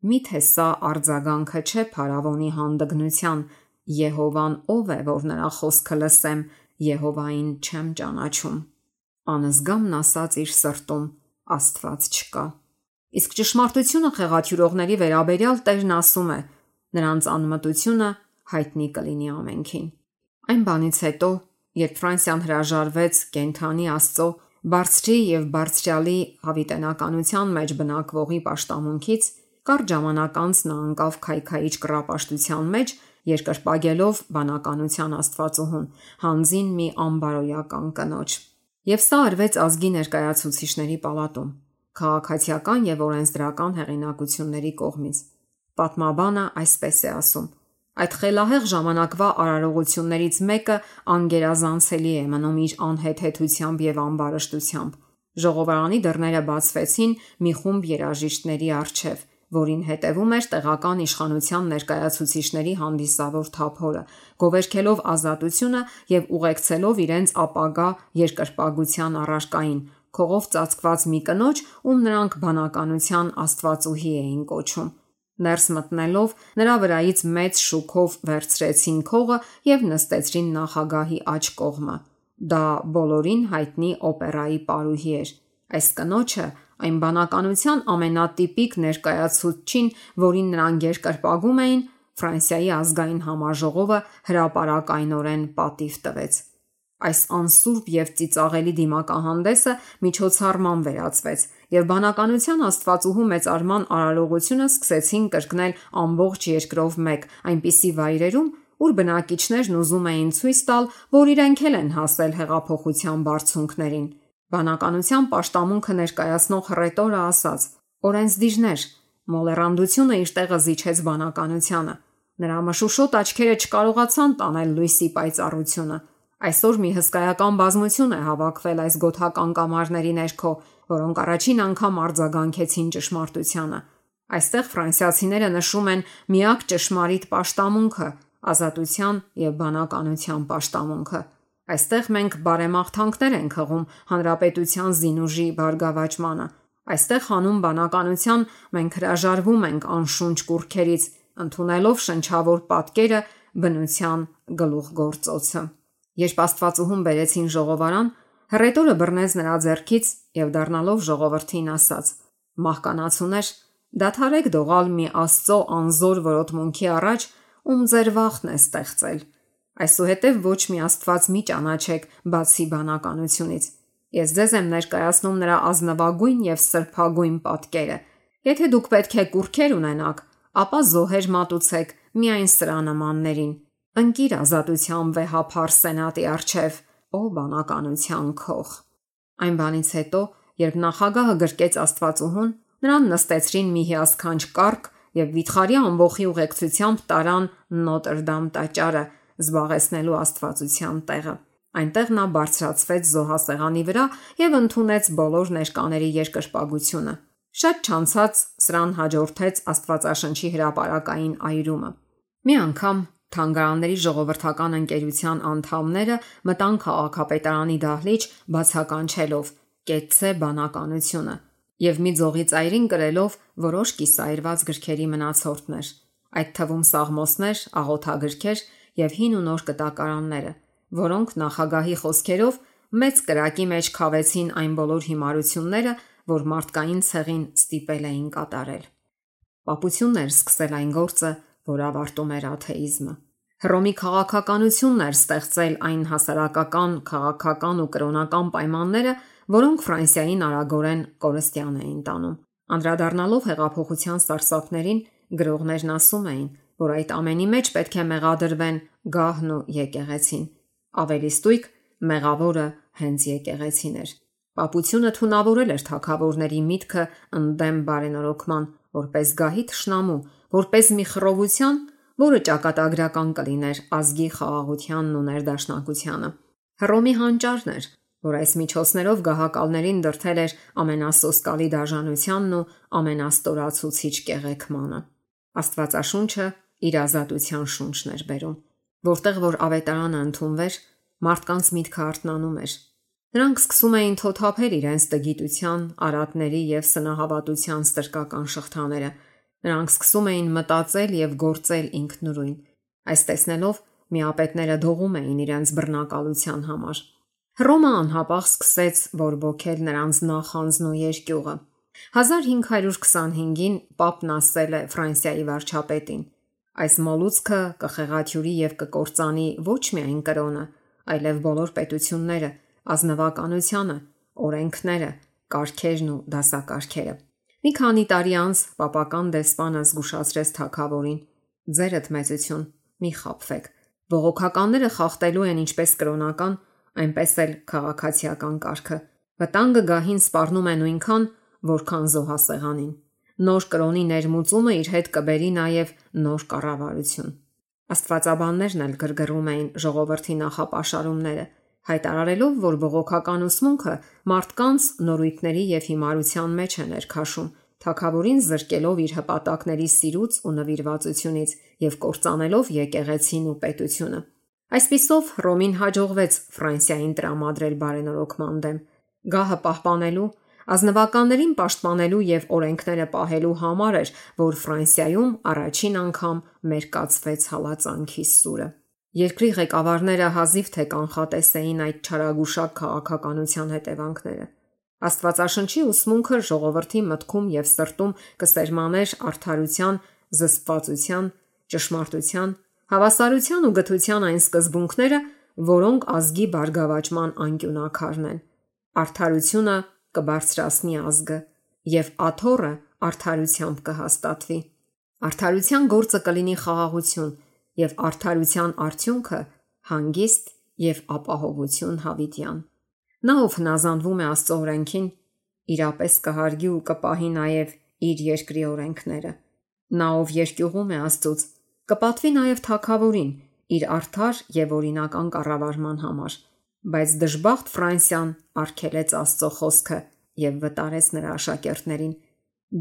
Միթե սա արձագանքը չէ փարավոնի հանդգնության, Եհովան ով է, որ նրա խոսքը լսեմ, Եհովային չեմ ճանաչում։ Անզգամն ասաց իր սրտում. Աստված չկա։ Իսկ ճշմարտությունը խեղաթյուրողների վերաբերյալ Տերն ասում է. նրանց անմտությունը հայտնի կլինի ամենքին։ Այն բանից հետո, երբ Ֆրանսիան հրաժարվեց կենթանի Աստծո, բարձրի եւ բարձրյալի հավիտենականության մեջ բնակվողի պաշտամունքից, կարճ ժամանակ անց նա անկավ քայքայիչ կռապաշտության մեջ, երկրպագելով բանականության Աստվածուհուն, հանձին մի անբարոյական կնոջ։ Եվ սա արվեց ազգի ներկայացուցիչների պալատում, քաղաքացիական եւ օրենսդրական հեղինակությունների կողմից։ Պատմաբանը այսպես է ասում. այդ խելահեղ ժամանակվա արարողություններից մեկը անգերազանցելի է մնում իր անհեթեթությամբ եւ ամբարշտությամբ։ Ժողովարանի դռները բացվեցին մի խումբ երաժիշտների առջև, որին հետևում էր տեղական իշխանության ներկայացուցիչների հանդիսավոր թափորը, գովերքելով ազատությունը եւ ուղեկցելով իրենց ապագա երկրպագության առարկային, քողով ծածկված մի կնոջ, ում նրանք բանականության աստվածուհի էին կոչում։ Ներս մտնելով նրա վրայից մեծ շուքով վերցրեցին քողը եւ նստեցրին նախագահի աջ կողմը։ Դա բոլորին հայտնի օպերայի պարուհի էր։ Այս կնոջը այն բանականության ամենատիպիկ ներկայացուցչին, որին նրանք երկրպագում էին, Ֆրանսիայի ազգային համաժողովը հրապարակայնորեն պատիվ տվեց։ Այս անսուրբ եւ ծիծաղելի դիմակահանդեսը միջոցառման վերածվեց, եւ բանականության աստվածուհու մեծարման արարողությունը սկսեցին կրկնել ամբողջ երկրով մեկ, այնպիսի վայրերում, ուր բնակիչներն ուզում էին ցույց տալ, որ իրենք էլ են հասել հեղափոխության բարձունքներին։ Բանականության պաշտամունքը ներկայացնող հռետորը ասաց. օրենսդիրներ, մոլեռանդությունը իր տեղը զիջեց բանականությանը։ Նրա մշուշոտ աչքերը չկարողացան տանել լույսի պայծառությունը։ Այսօր մի հսկայական բազմություն է հավաքվել այս գոթական կամարների ներքո, որոնք առաջին անգամ արձագանքեցին ճշմարտությանը։ Այստեղ ֆրանսիացիները նշում են միակ ճշմարիտ պաշտամունքը, ազատության եւ բանականության պաշտամունքը։ Այստեղ մենք բարեմաղթանքներ ենք հղում հանրապետության զինուժի բարգավաճմանը։ Այստեղ հանուն բանականության մենք հրաժարվում ենք անշունչ կուռքերից, ընդունելով շնչավոր պատկերը բնության գլուխգործոցը։ Երբ աստվածուհուն բերեցին ժողովարան, հռետորը բռնեց նրա ձեռքից եւ դառնալով ժողովրդին ասաց. մահկանացուներ, դադարեք դողալ մի Աստծո անզոր որոտմունքի առաջ, ում ձեր վախն է ստեղծել։ Այսուհետև ոչ մի Աստված մի ճանաչեք բացի բանականությունից։ Ես ձեզ եմ ներկայացնում նրա ազնվագույն եւ սրբագույն պատկերը։ Եթե դուք պետք է կուռքեր ունենաք, ապա զոհեր մատուցեք միայն սրա նմաններին։ Ընկիր ազատության վեհափառ սենատի առջև, ո բանականության քող։ Այն բանից հետո, երբ նախագահը գրկեց Աստվածուհուն, նրան նստեցրին մի հիասքանչ կառք եւ վիթխարի ամբոխի ուղեկցությամբ տարան Նոտրդամ տաճարը, զբաղեցնելու Աստվածության տեղը։ Այնտեղ նա բարձրացվեց զոհասեղանի վրա եւ ընդունեց բոլոր ներկաների երկրպագությունը։ Շատ չանցած սրան հաջորդեց Աստվածաշնչի հրապարակային այրումը։ Մի անգամ Թանգարանների ժողովրդական ընկերության անդամները մտան քաղաքապետարանի դահլիճ բացականչելով «Կեցցե բանականությունը» եւ մի ձողի ծայրին կրելով որոշ կիսայրված գրքերի մնացորդներ, այդ թվում սաղմոսներ, աղոթագրքեր եւ հին ու նոր կտակարանները, որոնք նախագահի խոսքերով մեծ կրակի մեջ քավեցին այն բոլոր հիմարությունները, որ մարդկային ցեղին ստիպել էին կատարել։ Պապություններ սկսել այն գործը, որ ավարտում էր աթեիզմը։ Հռոմի քաղաքականությունն էր ստեղծել այն հասարակական, քաղաքական ու կրոնական պայմանները, որոնք Ֆրանսիային արագորեն կորստյան էին տանում։ Անդրադառնալով հեղափոխության սարսափներին, գրողներն ասում էին, որ այդ ամենի մեջ պետք է մեղադրվեն գահն ու եկեղեցին։ Ավելի ստույգ, մեղավորը հենց եկեղեցին էր։ Պապությունը թունավորել էր թագավորների միտքը ընդդեմ բարենորոգման, որպես գահի թշնամու, որպես մի խռովության, որը ճակատագրական կլիներ ազգի խաղաղությանն ու ներդաշնակությանը։ Հռոմի հանճարն էր, որ այս միջոցներով գահակալներին դրդել էր ամենասոսկալի դաժանությանն ու ամենաստորացուցիչ կեղեքմանը։ Աստվածաշունչը իր ազատության շունչն էր բերում, որտեղ որ ավետարանը ընդունվեր, մարդկանց միտքը արթնանում էր։ Նրանք սկսում էին թոթափել իրենց տգիտության, արատների եւ սնահավատության ստրկական շղթաները։ Նրանք սկսում էին մտածել եւ գործել ինքնուրույն։ Այս տեսնելով միապետները դողում էին իրենց բռնակալության համար։ Հռոմը անհապաղ սկսեց բորբոքել նրանց նախանձն ու երկյուղը։ 1525-ին Պապն ասել է Ֆրանսիայի վարչապետին. այս մոլուցքը կխեղաթյուրի եւ կկործանի ոչ միայն կրոնը, այլև բոլոր պետությունները, ազնվականությունը, օրենքները, կարգերն ու դասակարգերը։ Մի քանի տարի անց պապական դեսպանը զգուշացրեց թագավորին. ձերդ մեծություն, մի խաբվեք։ Բողոքականները խախտելու են ինչպես կրոնական, այնպես էլ քաղաքացիական կարգը։ Վտանգը գահին սպառնում է նույնքան, որքան զոհասեղանին։ Նոր կրոնի ներմուծումը իր հետ կբերի նաև նոր կառավարություն։ Աստվածաբաններն էլ գրգռում էին ժողովրդի նախապաշարումները, հայտարարելով, որ բողոքական ուսմունքը մարդկանց նորույթների եւ հիմարության մեջ է ներքաշում, թագավորին զրկելով իր հպատակների սիրուց ու նվիրվածությունից եւ կործանելով եկեղեցին ու պետությունը։ Այսպիսով Հռոմին հաջողվեց Ֆրանսիային տրամադրել բարենորոգման դեմ, գահը պահպանելու, ազնվականներին պաշտպանելու եւ օրենքները պահելու համար էր, որ Ֆրանսիայում առաջին անգամ մերկացվեց հալածանքի սուրը։ Երկրի ղեկավարները հազիվ թե կանխատես էին այդ չարագուշակ քաղաքականության հետևանքները։ Աստվածաշնչի ուսմունքը ժողովրդի մտքում եւ սրտում կսերմաներ արդարության, զսպվածության, ճշմարտության, հավասարության ու գթության այն սկզբունքները, որոնք ազգի բարգավաճման անկյունակարն են։ Արդարությունը կբարձրացնի ազգը եւ աթոռը արդարությամբ կհաստատվի։ Արդարության գործը կլինի խաղաղություն եւ արդարության արդյունքը հանգիստ եւ ապահովություն հավիտյան։ Նա ով հնազանդվում է Աստծո օրենքին, իրապես կհարգի ու կպահի նաև իր երկրի օրենքները։ Նա ով երկյուղում է Աստծուց, կպատվի նաև թագավորին իր արդար եւ օրինական կառավարման համար, բայց դժբախտ Ֆրանսիան արգելեց Աստծո խոսքը եւ վտարեց նրա աշակերտներին։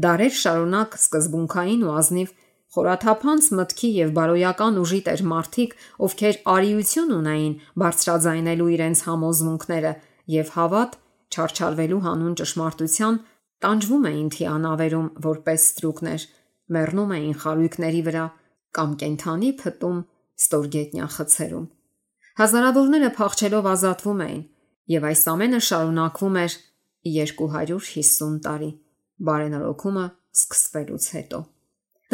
Դարեր շարունակ սկզբունքային ու ազնիվ խորաթափանց մտքի եւ բարոյական ուժի տեր մարդիկ, ովքեր արիություն ունեին բարձրաձայնելու իրենց համոզմունքները եւ հավատ չարչարվելու հանուն ճշմարտության, տանջվում էին թիանավերում որպես ստրուկներ, մեռնում էին խարույկների վրա կամ կենթանի փտում ստորգետնյա խցերում։ Հազարավորները փախչելով ազատվում էին, եւ այս ամենը շարունակվում էր 250 տարի բարենորոգումը սկսվելուց հետո։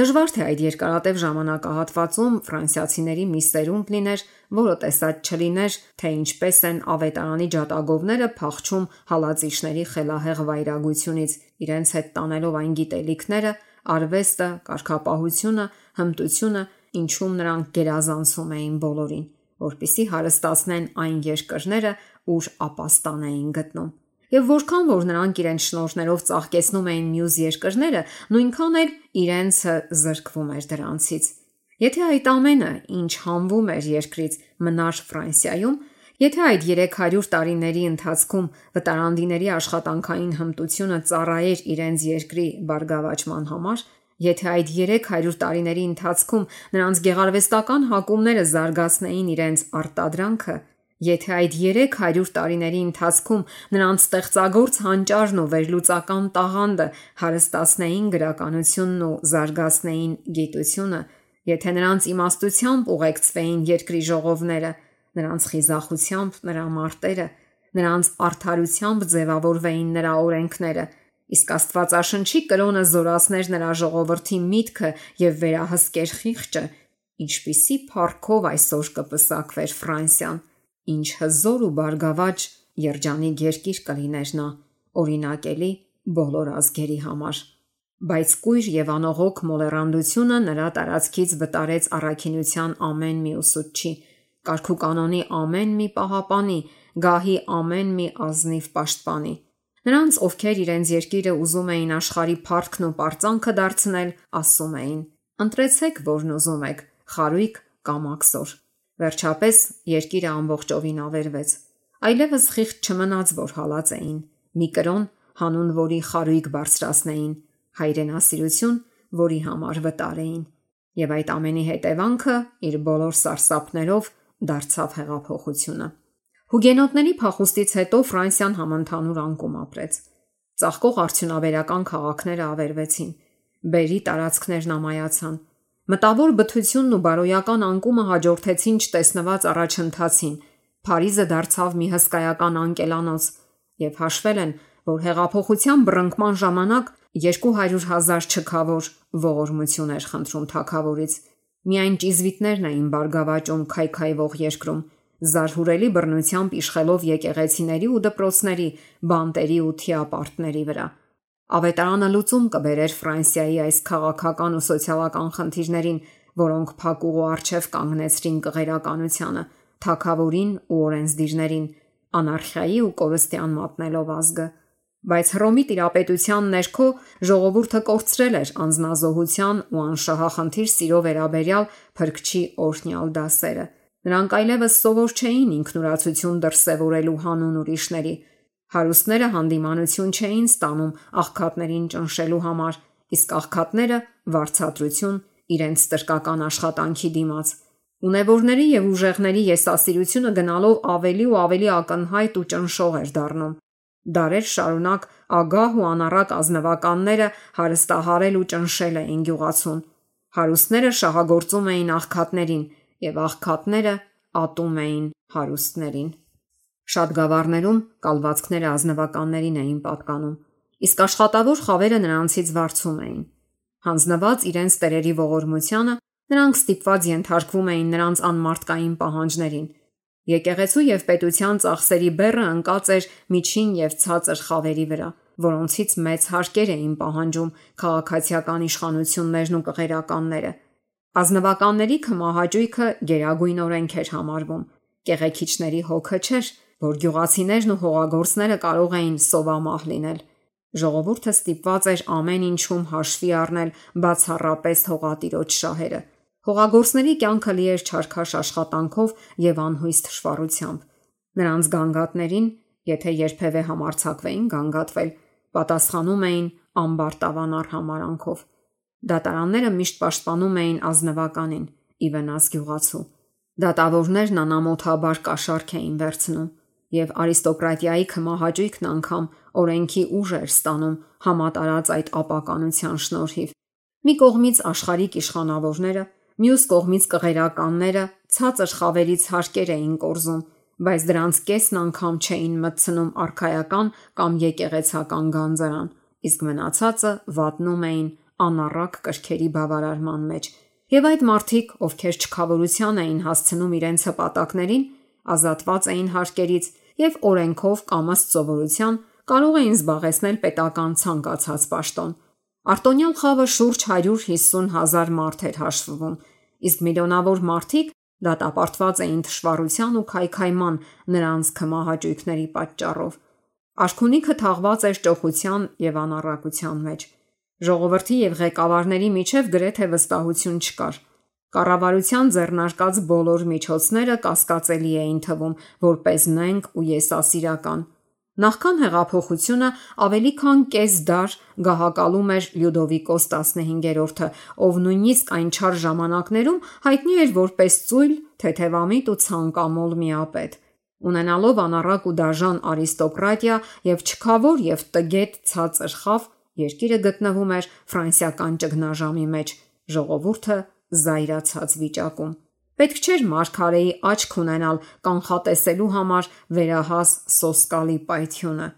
Դժվար թե այդ երկարատև ժամանակահատվածում ֆրանսիացիների մի սերունդ լիներ, որը տեսած չլիներ, թե ինչպես են ավետարանի ջատագովները փախչում հալածիչների խելահեղ վայրագությունից, իրենց հետ տանելով այն գիտելիքները, արվեստը, կարգապահությունը, հմտությունը ինչում նրանք գերազանցում էին բոլորին, որպեսզի հարստացնեն այն երկրները, ուր ապաստան էին գտնում։ Եվ որքան որ նրանք իրենց շնորհներով ծաղկեցնում էին մյուս երկրները, նույնքան էլ իրենցը զրկվում էր դրանցից։ Եթե այդ ամենը, ինչ հանվում էր երկրից, մնար Ֆրանսիայում, եթե այդ 300 տարիների ընթացքում վտարանդիների աշխատանքային հմտությունը ծառայեր իրենց երկրի բարգավաճման համար, եթե այդ 300 տարիների ընթացքում նրանց գեղարվեստական հակումները զարգացնեին իրենց արտադրանքը, եթե այդ 300 տարիների ընթացքում նրանց ստեղծագործ հանճարն ու վերլուծական տաղանդը հարստացնեին գրականությունն ու զարգացնեին գիտությունը, եթե նրանց իմաստությամբ ուղեկցվեին երկրի ժողովները, նրանց խիզախությամբ նրա մարտերը, նրանց արդարությամբ ձևավորվեին նրա օրենքները, իսկ Աստվածաշնչի կրոնը զորացներ նրա ժողովրդի միտքը եւ վերահսկեր խիղճը, ինչպիսի փառքով այսօր կպսակվեր Ֆրանսիան, ինչ հզոր ու բարգավաճ երջանիկ երկիր կլիներ նա, օրինակելի բոլոր ազգերի համար։ Բայց կույր եւ անողոք մոլեռանդությունը նրա տարածքից վտարեց առաքինության ամեն մի ուսուցչի, կարգուկանոնի ամեն մի պահապանի, գահի ամեն մի ազնիվ պաշտպանի։ Նրանց, ովքեր իրենց երկիրը ուզում էին աշխարհի փառքն ու պարծանքը դարձնել, ասում էին. ընտրեցեք, որն ուզում եք, խարույկ կամ աքսոր։ Վերջապես երկիրը ամբողջովին ավերվեց։ Այլևս խիղճ չմնաց, որ հալած էին։ Մի կրոն, հանուն որի խարույկ բարձրացնեին, հայրենասիրություն, որի համար վտար էին։ Եվ այդ ամենի հետևանքը իր բոլոր սարսափներով դարձավ հեղափոխությունը։ Հուգենոտների փախուստից հետո Ֆրանսիան համընդհանուր անկում ապրեց։ Ծաղկող արդյունաբերական քաղաքները ավերվեցին, բերի տարածքներն ամայացան։ Մտավոր բթությունն ու բարոյական անկումը հաջորդեցին չտեսնված առաջընթացին։ Փարիզը դարձավ մի հսկայական անկելանոց, եւ հաշվել են, որ հեղափոխության բռնկման ժամանակ 200,000 չքավոր ողորմություն էր խնդրում թագավորից։ Միայն ճիզվիտներն էին բարգավաճում քայքայվող երկրում, զարհուրելի բռնությամբ իշխելով եկեղեցիների ու դպրոցների, բանտերի ու թիապարտների վրա։ Ավետարանը լուծում կբերեր Ֆրանսիայի այս քաղաքական ու սոցիալական խնդիրներին, որոնք փակուղու առջև կանգնեցրին կղերականությանը, թագավորին ու օրենսդիրներին, անարխիայի ու կորստյան մատնելով ազգը։ Բայց Հռոմի տիրապետության ներքո ժողովուրդը կորցրել էր անznազողության ու անշահախնդիր սիրո վերաբերյալ փրկչի օրհնյալ դասերը։ Նրանք այլևս սովոր չէին ինքնուրացություն դրսևորելու հանուն ուրիշների։ Հարուստները հանդիմանություն չէին ստանում աղքատներին ճնշելու համար, իսկ աղքատները վարձատրություն իրենց տրկական աշխատանքի դիմաց։ Ունևորների եւ ուժեղների եսասիրությունը գնալով ավելի ու ավելի ակնհայտ ու ճնշող էր դառնում։ Դարեր շարունակ ագահ ու անառակ ազնվականները հարստահարել ու ճնշել էին գյուղացուն։ Հարուստները շահագործում էին աղքատներին եւ աղքատները ատում էին հարուստներին։ Շատ գավառներում կալվածքները ազնվականներին էին պատկանում, իսկ աշխատավոր խավերը նրանցից վարձում էին։ Հանձնված իրենց տերերի ողորմությանը, նրանք ստիպված ենթարկվում էին նրանց անմարդկային պահանջներին։ Եկեղեցու եւ պետության ծախսերի բեռը ընկած էր միջին եւ ցածր խավերի վրա, որոնցից մեծ հարկեր էին պահանջում քաղաքացիական իշխանություններն ու կղերականները։ Ազնվականների քմահաճույքը գերագույն օրենք էր համարվում։ Կեղեքիչների հոգը չէր, որ գյուղացիներն ու հողագործները կարող էին սովամահ լինել։ Ժողովուրդը ստիպված էր ամեն ինչում հաշվի առնել բացառապես հողատիրոջ շահերը։ Հողագործների կյանքը լի էր չարքաշ աշխատանքով եւ անհույս թշվառությամբ։ Նրանց գանգատներին, եթե երբևէ համարձակվեին գանգատվել, պատասխանում էին ամբարտավան արհամարանքով։ Դատարանները միշտ պաշտպանում էին ազնվականին՝ ի վնաս գյուղացու։ Դատավորներն անամոթաբար կաշառք էին վերցնում, եւ արիստոկրատիայի քմահաճույքն անգամ օրենքի ուժ էր ստանում համատարած այդ ապականության շնորհիվ։ Մի կողմից աշխարհիկ իշխանավորները, մյուս կողմից կղերականները ցածր խավերից հարկեր էին կորզում, բայց դրանց կեսն անգամ չէին մտցնում արքայական կամ եկեղեցական գանձարան, իսկ մնացածը վատնում էին անառակ կրքերի բավարարման մեջ։ Եվ այդ մարդիկ, ովքեր չքավորության էին հասցնում իրենց հպատակներին, ազատված էին հարկերից եւ օրենքով կամ ըստ սովորության կարող էին զբաղեցնել պետական ցանկացած պաշտոն։ Արտոնյալ խավը շուրջ 150,000 մարդ էր հաշվվում, իսկ միլիոնավոր մարդիկ դատապարտված էին թշվառության ու քայքայման նրանց քմահաճույքների պատճառով։ Արքունիքը թաղված էր ճոխության եւ անառակության մեջ։ Ժողովրդի եւ ղեկավարների միջև գրեթե վստահություն չկար։ Կառավարության ձեռնարկած բոլոր միջոցները կասկածելի էին թվում, որպես նենգ ու եսասիրական։ Նախքան հեղափոխությունը ավելի քան կես դար գահակալում էր Լյուդովիկոս 15-րդը, ով նույնիսկ այն չար ժամանակներում հայտնի էր որպես ծույլ, թեթևամիտ ու ցանկամոլ միապետ։ Ունենալով անառակ ու դաժան արիստոկրատիա եւ չքավոր եւ տգետ ցածր խավ, երկիրը գտնվում էր ֆրանսիական ճգնաժամի մեջ, ժողովուրդը զայրացած վիճակում։ Պետք չէր մարգարեի աչք ունենալ կանխատեսելու համար վերահաս սոսկալի պայթյունը։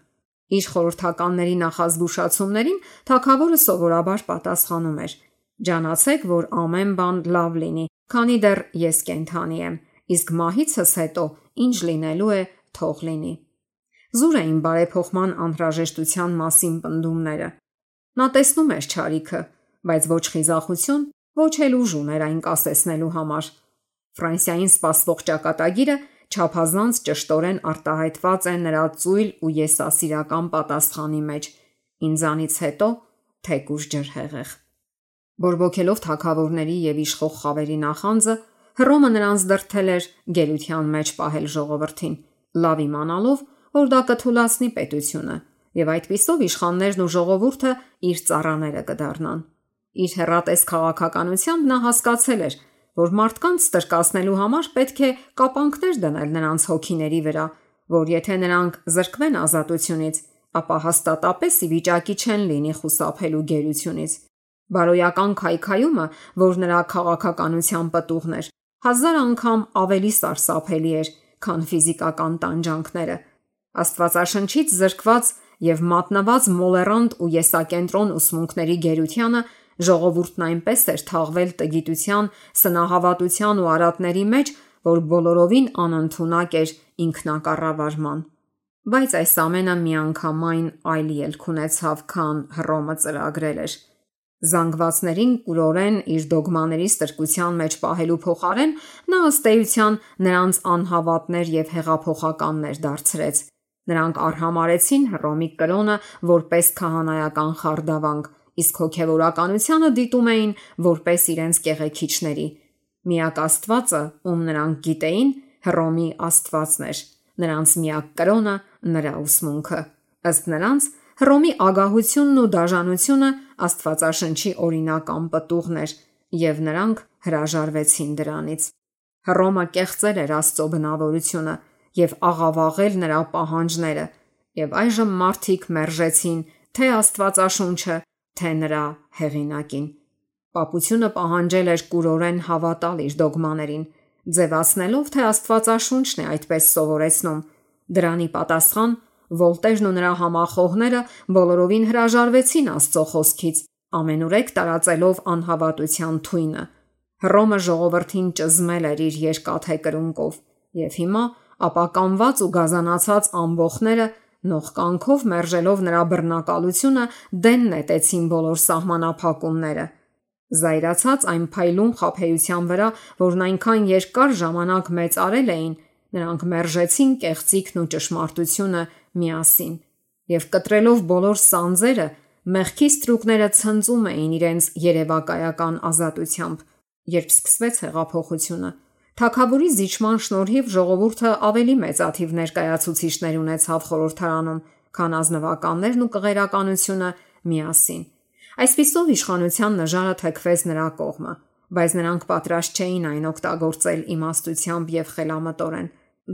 Իր խորհրդականների նախազգուշացումներին թագավորը սովորաբար պատասխանում էր. «Ջանացեք, որ ամեն բան լավ լինի, քանի դեռ ես կենդանի եմ, իսկ մահիցս հետո ինչ լինելու է, թող լինի»։ Զուր էին բարեփոխման անհրաժեշտության մասին պնդումները։ Նա տեսնում էր չարիքը, բայց ոչ խիզախություն, ոչ էլ ուժ ուներ այն կասեցնելու համար։ Ֆրանսիային սպասվող ճակատագիրը չափազանց ճշտորեն արտահայտված է նրա ծույլ ու եսասիրական պատասխանի մեջ. «Ինձանից հետո թեկուզ ջրհեղեղ»։ Բորբոքելով թագավորների եւ իշխող խավերի նախանձը, Հռոմը նրանց դրդել էր գերության մեջ պահել ժողովրդին, լավ իմանալով, որ դա կթուլացնի պետությունը, եւ այդպիսով իշխաններն ու ժողովուրդը իր ծառաները կդառնան։ Իր հեռատես քաղաքականությամբ նա հասկացել էր, որ մարդկանց ստրկացնելու համար պետք է կապանքներ դնել նրանց հոգիների վրա, որ եթե նրանք զրկվեն ազատությունից, ապա հաստատապես ի վիճակի չեն լինի խուսափելու գերությունից։ Բարոյական քայքայումը, որ նրա քաղաքականության պտուղն էր, 1000 անգամ ավելի սարսափելի էր, քան ֆիզիկական տանջանքները։ Աստվածաշնչից զրկված եւ մատնված մոլերանտ ու եսակենտրոն ուսմունքների գերությանը ժողովուրդն այնպես էր թաղվել տգիտության, սնահավատության ու արատների մեջ, որ բոլորովին անընդունակ էր ինքնակառավարման։ Բայց այս ամենը միանգամայն այլ ելք ունեցավ, քան Հռոմը ծրագրել էր։ Զանգվածներին կուրորեն իր դոգմաների ստրկության մեջ պահելու փոխարեն նա ըստ էության նրանց անհավատներ եւ հեղափոխականներ դարձրեց։ Նրանք արհամարեցին Հռոմի կրոնը որպես քահանայական խարդավանք, իսկ հոգևորականությանը դիտում էին որպես իրենց կեղեքիչների։ Միակ Աստվածը, ում նրանք գիտեին, Հռոմի Աստվածն էր, նրանց միակ կրոնը նրա ուսմունքը։ Ըստ նրանց, Հռոմի ագահությունն ու դաժանությունը Աստվածաշնչի օրինական պտուղն էր, եւ նրանք հրաժարվեցին դրանից։ Հռոմը կեղծել էր Աստծո բնավորությունը եւ աղավաղել նրա պահանջները, եւ այժմ մարդիկ մերժեցին թե Աստվածաշունչը, թե նրա հեղինակին։ Պապությունը պահանջել էր կուրորեն հավատալ իր դոգմաներին, ձևացնելով, թե Աստվածաշունչն է այդպես սովորեցնում։ Դրանի պատասխան Վոլտերն ու նրա համախոհները բոլորովին հրաժարվեցին Աստծո խոսքից, ամենուրեք տարածելով անհավատության թույնը։ Հռոմը ժողովրդին ճզմել էր իր երկաթե կրունկով, եւ հիմա ապականված ու գազանացած ամբոխները նողկանքով մերժելով նրա բռնակալությունը դեն նետեցին բոլոր սահմանափակումները։ Զայրացած այն փայլուն խաբեության վրա, որն այնքան երկար ժամանակ մեծարել էին, նրանք մերժեցին կեղծիքն ու ճշմարտությունը միասին, եւ կտրելով բոլոր սանձերը, մեղքի ստրուկները ցնծում էին իրենց երևակայական ազատությամբ։ Երբ սկսվեց հեղափոխությունը, թագավորի զիջման շնորհիվ ժողովուրդը ավելի մեծաթիվ ներկայացուցիչներ ունեցավ խորհրդարանում, քան ազնվականներն ու կղերականությունը միասին։ Այսպիսով իշխանության նժարը թեքվեց նրա կողմը, բայց նրանք պատրաստ չէին այն օգտագործել իմաստությամբ եւ խելամտորեն,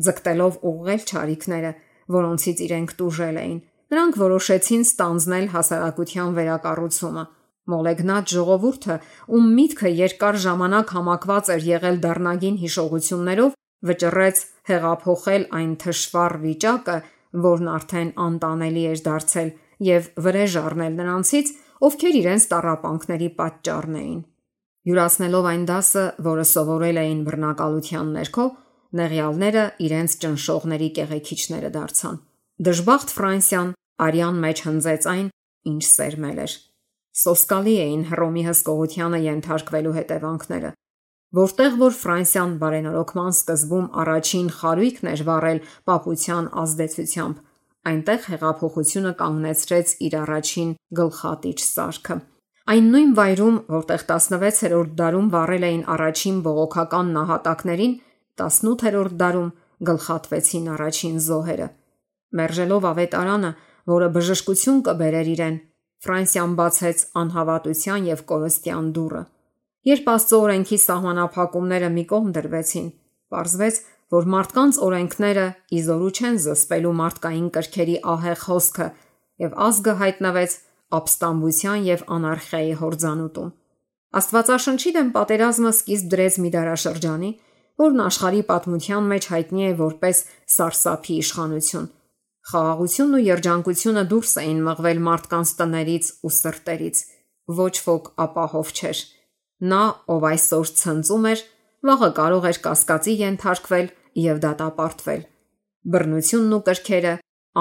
ձգտելով ուղղել չարիքները, որոնցից իրենք տուժել էին։ Նրանք որոշեցին ստանձնել հասարակության վերակառուցումը։ Մոլեգնած ժողովուրդը, ում միտքը երկար ժամանակ համակված էր եղել դառնագին հիշողություններով, վճռեց հեղափոխել այն թշվառ վիճակը, որն արդեն անտանելի էր դարձել, եւ վրեժ առնել նրանցից, ովքեր իրենց տառապանքների պատճառն էին։ Յուրացնելով այն դասը, որը սովորել էին բռնակալության ներքո, նեղյալները իրենց ճնշողների կեղեքիչները դարձան։ Դժբախտ Ֆրանսիան արյան մեջ հնձեց այն, ինչ սերմել էր։ Սոսկալի էին Հռոմի հսկողությանը ենթարկվելու հետևանքները։ Որտեղ որ Ֆրանսիան բարենորոգման սկզբում առաջին խարույկն էր վառել պապության ազդեցությամբ, այնտեղ հեղափոխությունը կանգնեցրեց իր առաջին գլխատիչ սարքը։ Այն նույն վայրում, որտեղ 16-րդ դարում վառել էին առաջին բողոքական նահատակներին, 18-րդ դարում գլխատվեցին առաջին զոհերը։ Մերժելով ավետարանը, որը բժշկություն կբերեր իրեն, Ֆրանսիան բացեց անհավատության եւ կորստյան դուռը։ Երբ Աստծո օրենքի սահմանափակումները մի կողմ դրվեցին, պարզվեց, որ մարդկանց օրենքները իզորու չեն զսպելու մարդկային կրքերի ահեղ հոսքը, եւ ազգը հայտնվեց ապստամբության եւ անարխիայի հորձանուտում։ Աստվածաշնչի դեմ պատերազմը սկիզբ դրեց մի դարաշրջանի, որն աշխարհի պատմության մեջ հայտնի է որպես սարսափի իշխանություն։ Խաղաղությունն ու երջանկությունը դուրս էին մղվել մարդկանց տներից ու սրտերից։ Ոչ ոք ապահով չէր։ Նա, ով այսօր ցնծում էր, վաղը կարող էր կասկածի ենթարկվել եւ դատապարտվել։ Բռնությունն ու կրքերը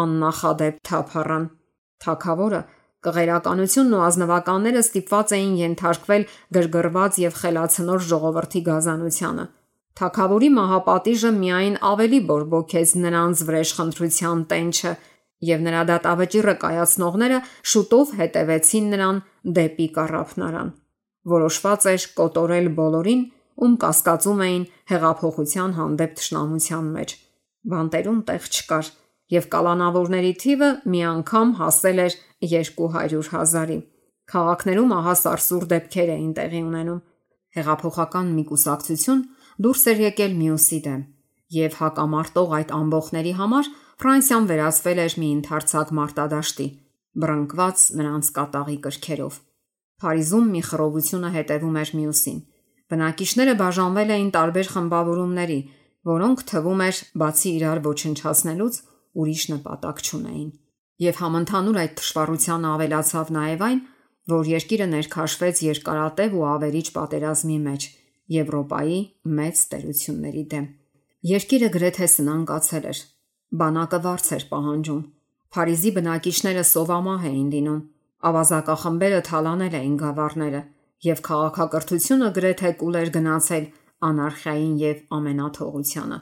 աննախադեպ թափառան։ Թագավորը, կղերականությունն ու ազնվականները ստիպված էին ենթարկվել գրգռված եւ խելացնոր ժողովրդի գազանությանը։ Թագավորի մահապատիժը միայն ավելի բորբոքեց նրանց վրեժխնդրության տենչը, եւ նրա դատավճիռը կայացնողները շուտով հետևեցին նրան դեպի կառափնարան։ Որոշված էր կոտորել բոլորին, ում կասկածում էին հեղափոխության հանդեպ թշնամության մեջ։ Բանտերում տեղ չկար, եւ կալանավորների թիվը մի անգամ հասել էր 200,000-ի։ Քաղաքներում ահա սարսուռ դեպքեր էին տեղի ունենում։ Հեղափոխական մի կուսակցություն դուրս էր եկել մյուսի դեմ, եւ հակամարտող այդ ամբոխների համար Ֆրանսիան վերածվել էր մի ընդարձակ մարտադաշտի, բռնկված նրանց կատաղի կրքերով։ Փարիզում մի խռովությունը հետևում էր մյուսին։ Բնակիչները բաժանվել էին տարբեր խմբավորումների, որոնք թվում էր բացի իրար ոչնչացնելուց ուրիշ նպատակ չունեին։ Եվ համընդհանուր այդ թշվառությանը ավելացավ նաև այն, որ երկիրը ներքաշվեց երկարատև ու ավերիչ պատերազմի մեջ Եվրոպայի մեծ տերությունների դեմ։ Երկիրը գրեթե սնանկացել էր։ Բանակը վարձ էր պահանջում։ Փարիզի բնակիչները սովամահ էին լինում, ավազակախմբերը թալանել էին գավառները, եւ քաղաքակրթությունը գրեթե կուլ էր գնացել անարխիային եւ ամենաթողությանը։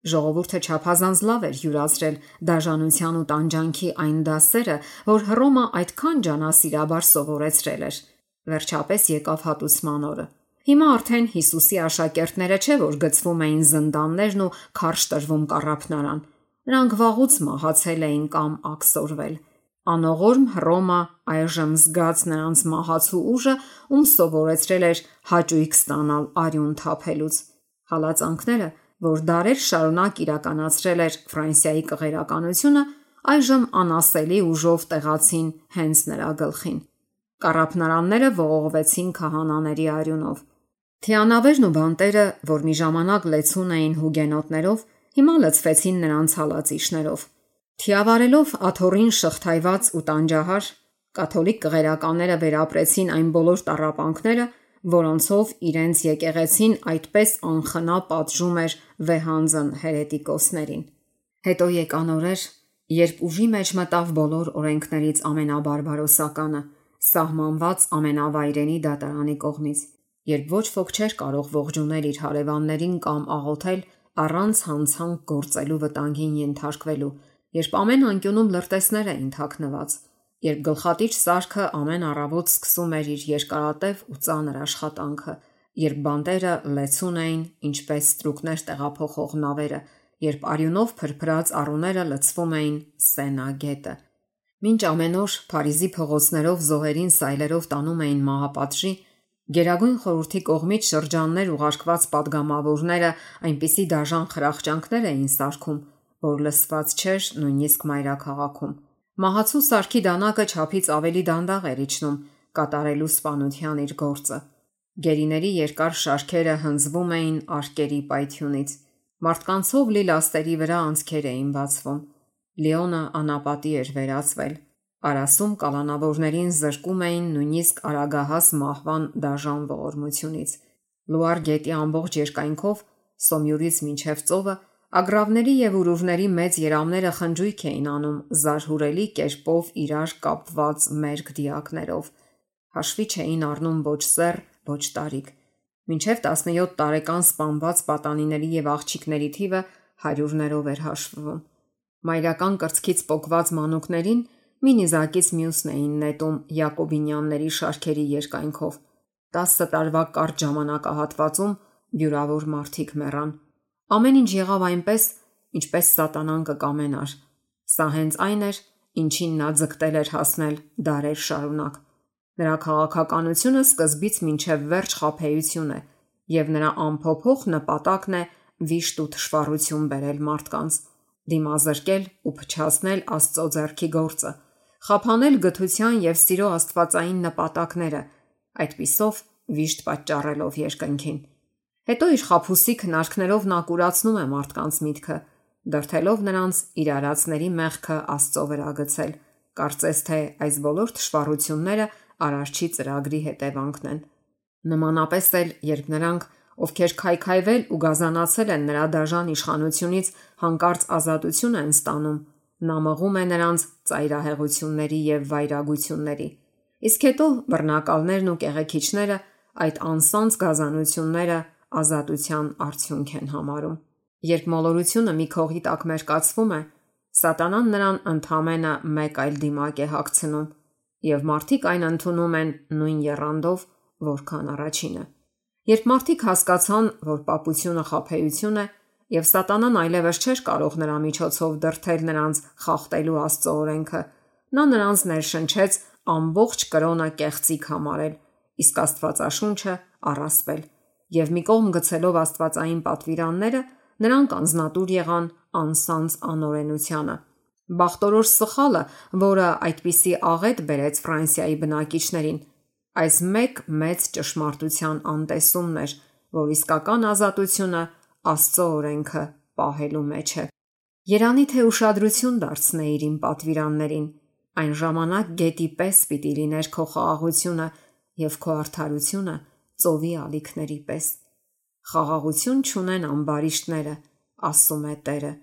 Ժողովուրդը չափազանց լավ էր յուրացրել դաժանության ու տանջանքի այն դասերը, որ Հռոմը այդքան ջանասիրաբար սովորեցրել էր։ Վերջապես եկավ հատուցման օրը։ Հիմա արդեն Հիսուսի աշակերտները չէ որ գցվում էին զնդաններն ու քարշ տրվում կառափնարան։ Նրանք վաղուց մահացել էին կամ աքսորվել։ Անողորմ Հռոմը այժմ զգաց նրանց մահացու ուժը, ում սովորեցրել էր հաճույք ստանալ արյուն թափելուց։ Հալածանքները, որ դարեր շարունակ իրականացրել էր Ֆրանսիայի կղերականությունը, այժմ անասելի ուժով տեղացին հենց նրա գլխին։ Կառափնարանները ողողվեցին քահանաների արյունով։ Թիանավերն ու բանտերը, որ մի ժամանակ լեցուն էին հուգենոտներով, հիմա լցվեցին նրանց հալածիչներով։ Թիավարելով աթոռին շղթայված ու տանջահար, կաթոլիկ կղերականները վերապրեցին այն բոլոր տառապանքները, որոնցով իրենց եկեղեցին այդպես անխնա պատժում էր վեհանձն հերետիկոսներին։ Հետո եկան օրեր, երբ ուժի մեջ մտավ բոլոր օրենքներից ամենաբարբարոսականը, սահմանված ամենավայրենի դատարանի կողմից, երբ ոչ ոք չէր կարող ողջունել իր հարևաններին կամ աղոթել առանց հանցանք գործելու վտանգին ենթարկվելու, երբ ամեն անկյունում լրտեսներ էին թաքնված, երբ գլխատիչ սարքը ամեն առավոտ սկսում էր իր երկարատև ու ծանր աշխատանքը, երբ բանտերը լեցուն էին, ինչպես ստրուկներ տեղափոխող նավերը, երբ արյունով փրփրած առուները լցվում էին Սենա գետը։ Մինչ ամեն օր Փարիզի փողոցներով զոհերին սայլերով տանում էին մահապատժի, Գերագույն խորհրդի կողմից շրջաններ ուղարկված падգամավորները այնպիսի դաժան խրախճանքներ էին սարքում, որ լսված չէր նույնիսկ մայրաքաղաքում։ Մահացու սարքի դանակը չափից ավելի դանդաղ էր իջնում, կատարելու սպանության իր գործը։ Գերիների երկար շարքերը հնձվում էին արկերի պայթյունից։ Մարդկանցով լի լաստերի վրա անցքեր էին բացվում։ Լիոնը անապատի էր վերածվել։ Արասում կալանավորներին զրկում էին նույնիսկ արագահաս մահվան դաժան ողորմությունից։ Լուար գետի ամբողջ երկայնքով, Սոմյուրից մինչև ծովը, ագրավների եւ ուրուրների մեծ երամները խնջույք էին անում զարհուրելի կերպով իրար կապված մերկ դիակներով։ Հաշվի չէին առնում ոչ սեռ, ոչ տարիք։ Մինչև 17 տարեկան սպանված պատանիների եւ աղջիկների թիվը հարյուրներով էր հաշվվում։ Մայրական կրծքից պոկված մանուկներին մի նիզակից մյուսն էին նետում Յակոբինյանների շարքերի երկայնքով։ 10 տարվա կարճ ժամանակահատվածում յուրավոր մարդիկ մեռան։ Ամեն ինչ եղավ այնպես, ինչպես սատանան կկամենար։ Սա հենց այն էր, ինչին նա ձգտել էր հասնել դարեր շարունակ։ Նրա քաղաքականությունը սկզբից մինչև վերջ խաբեություն է, եւ նրա անփոփոխ նպատակն է վիշտ ու թշվառություն բերել մարդկանց, դիմազրկել ու փչացնել Աստծո ձեռքի գործը, խափանել գթության եւ սիրո աստվածային նպատակները, այդպիսով վիշտ պատճառելով երկնքին։ Հետո իր խաբուսի քնարքներով նա կուրացնում է մարդկանց միտքը, դրթելով նրանց իր արածների մեղքը Աստծո վրա գցել, կարծես թե այս բոլոր թշվառությունները Արարչի ծրագրի հետևանքն են։ Նմանապես էլ, երբ նրանք, ովքեր քայքայվել ու գազանացել են նրա դաժան իշխանությունից, հանկարծ ազատություն են ստանում, նա մղում է նրանց ծայրահեղությունների եւ վայրագությունների։ Իսկ հետո բռնակալներն ու կեղեքիչները այդ անսանձ գազանությունները ազատության արդյունք են համարում։ Երբ մոլորությունը մի քողի տակ մերկացվում է, սատանան նրան ընդհանրապես մեկ այլ դիմակ է հագցնում, եւ մարդիկ այն ընդունում են նույն եռանդով, որքան առաջինը։ Երբ մարդիկ հասկացան, որ պապությունը խաբեություն է, եւ սատանան այլևս չէր կարող նրա միջոցով դրթել նրանց խախտելու Աստծո օրենքը, նա նրանց ներշնչեց ամբողջ կրոնը կեղծիք համարել, իսկ Աստվածաշունչը առասպել, եւ մի կողմ գցելով աստվածային պատվիրանները, նրանք անznատուր եղան անսանձ անօրենությանը։ Բախտորոշ սխալը, որը այդպիսի աղետ բերեց Ֆրանսիայի բնակիչներին, այս մեծ ճշմարտության անտեսումն էր, որ իսկական ազատությունը Աստծո օրենքը պահելու մեջ է։ Երանի թե ուշադրություն դարձնեիր իմ պատվիրաններին, այն ժամանակ գետի պես պիտի լիներ քո խաղաղությունը եւ քո արդարությունը ծովի ալիքների պես։ Խաղաղություն չունեն ամբարիշտները, ասում է Տերը,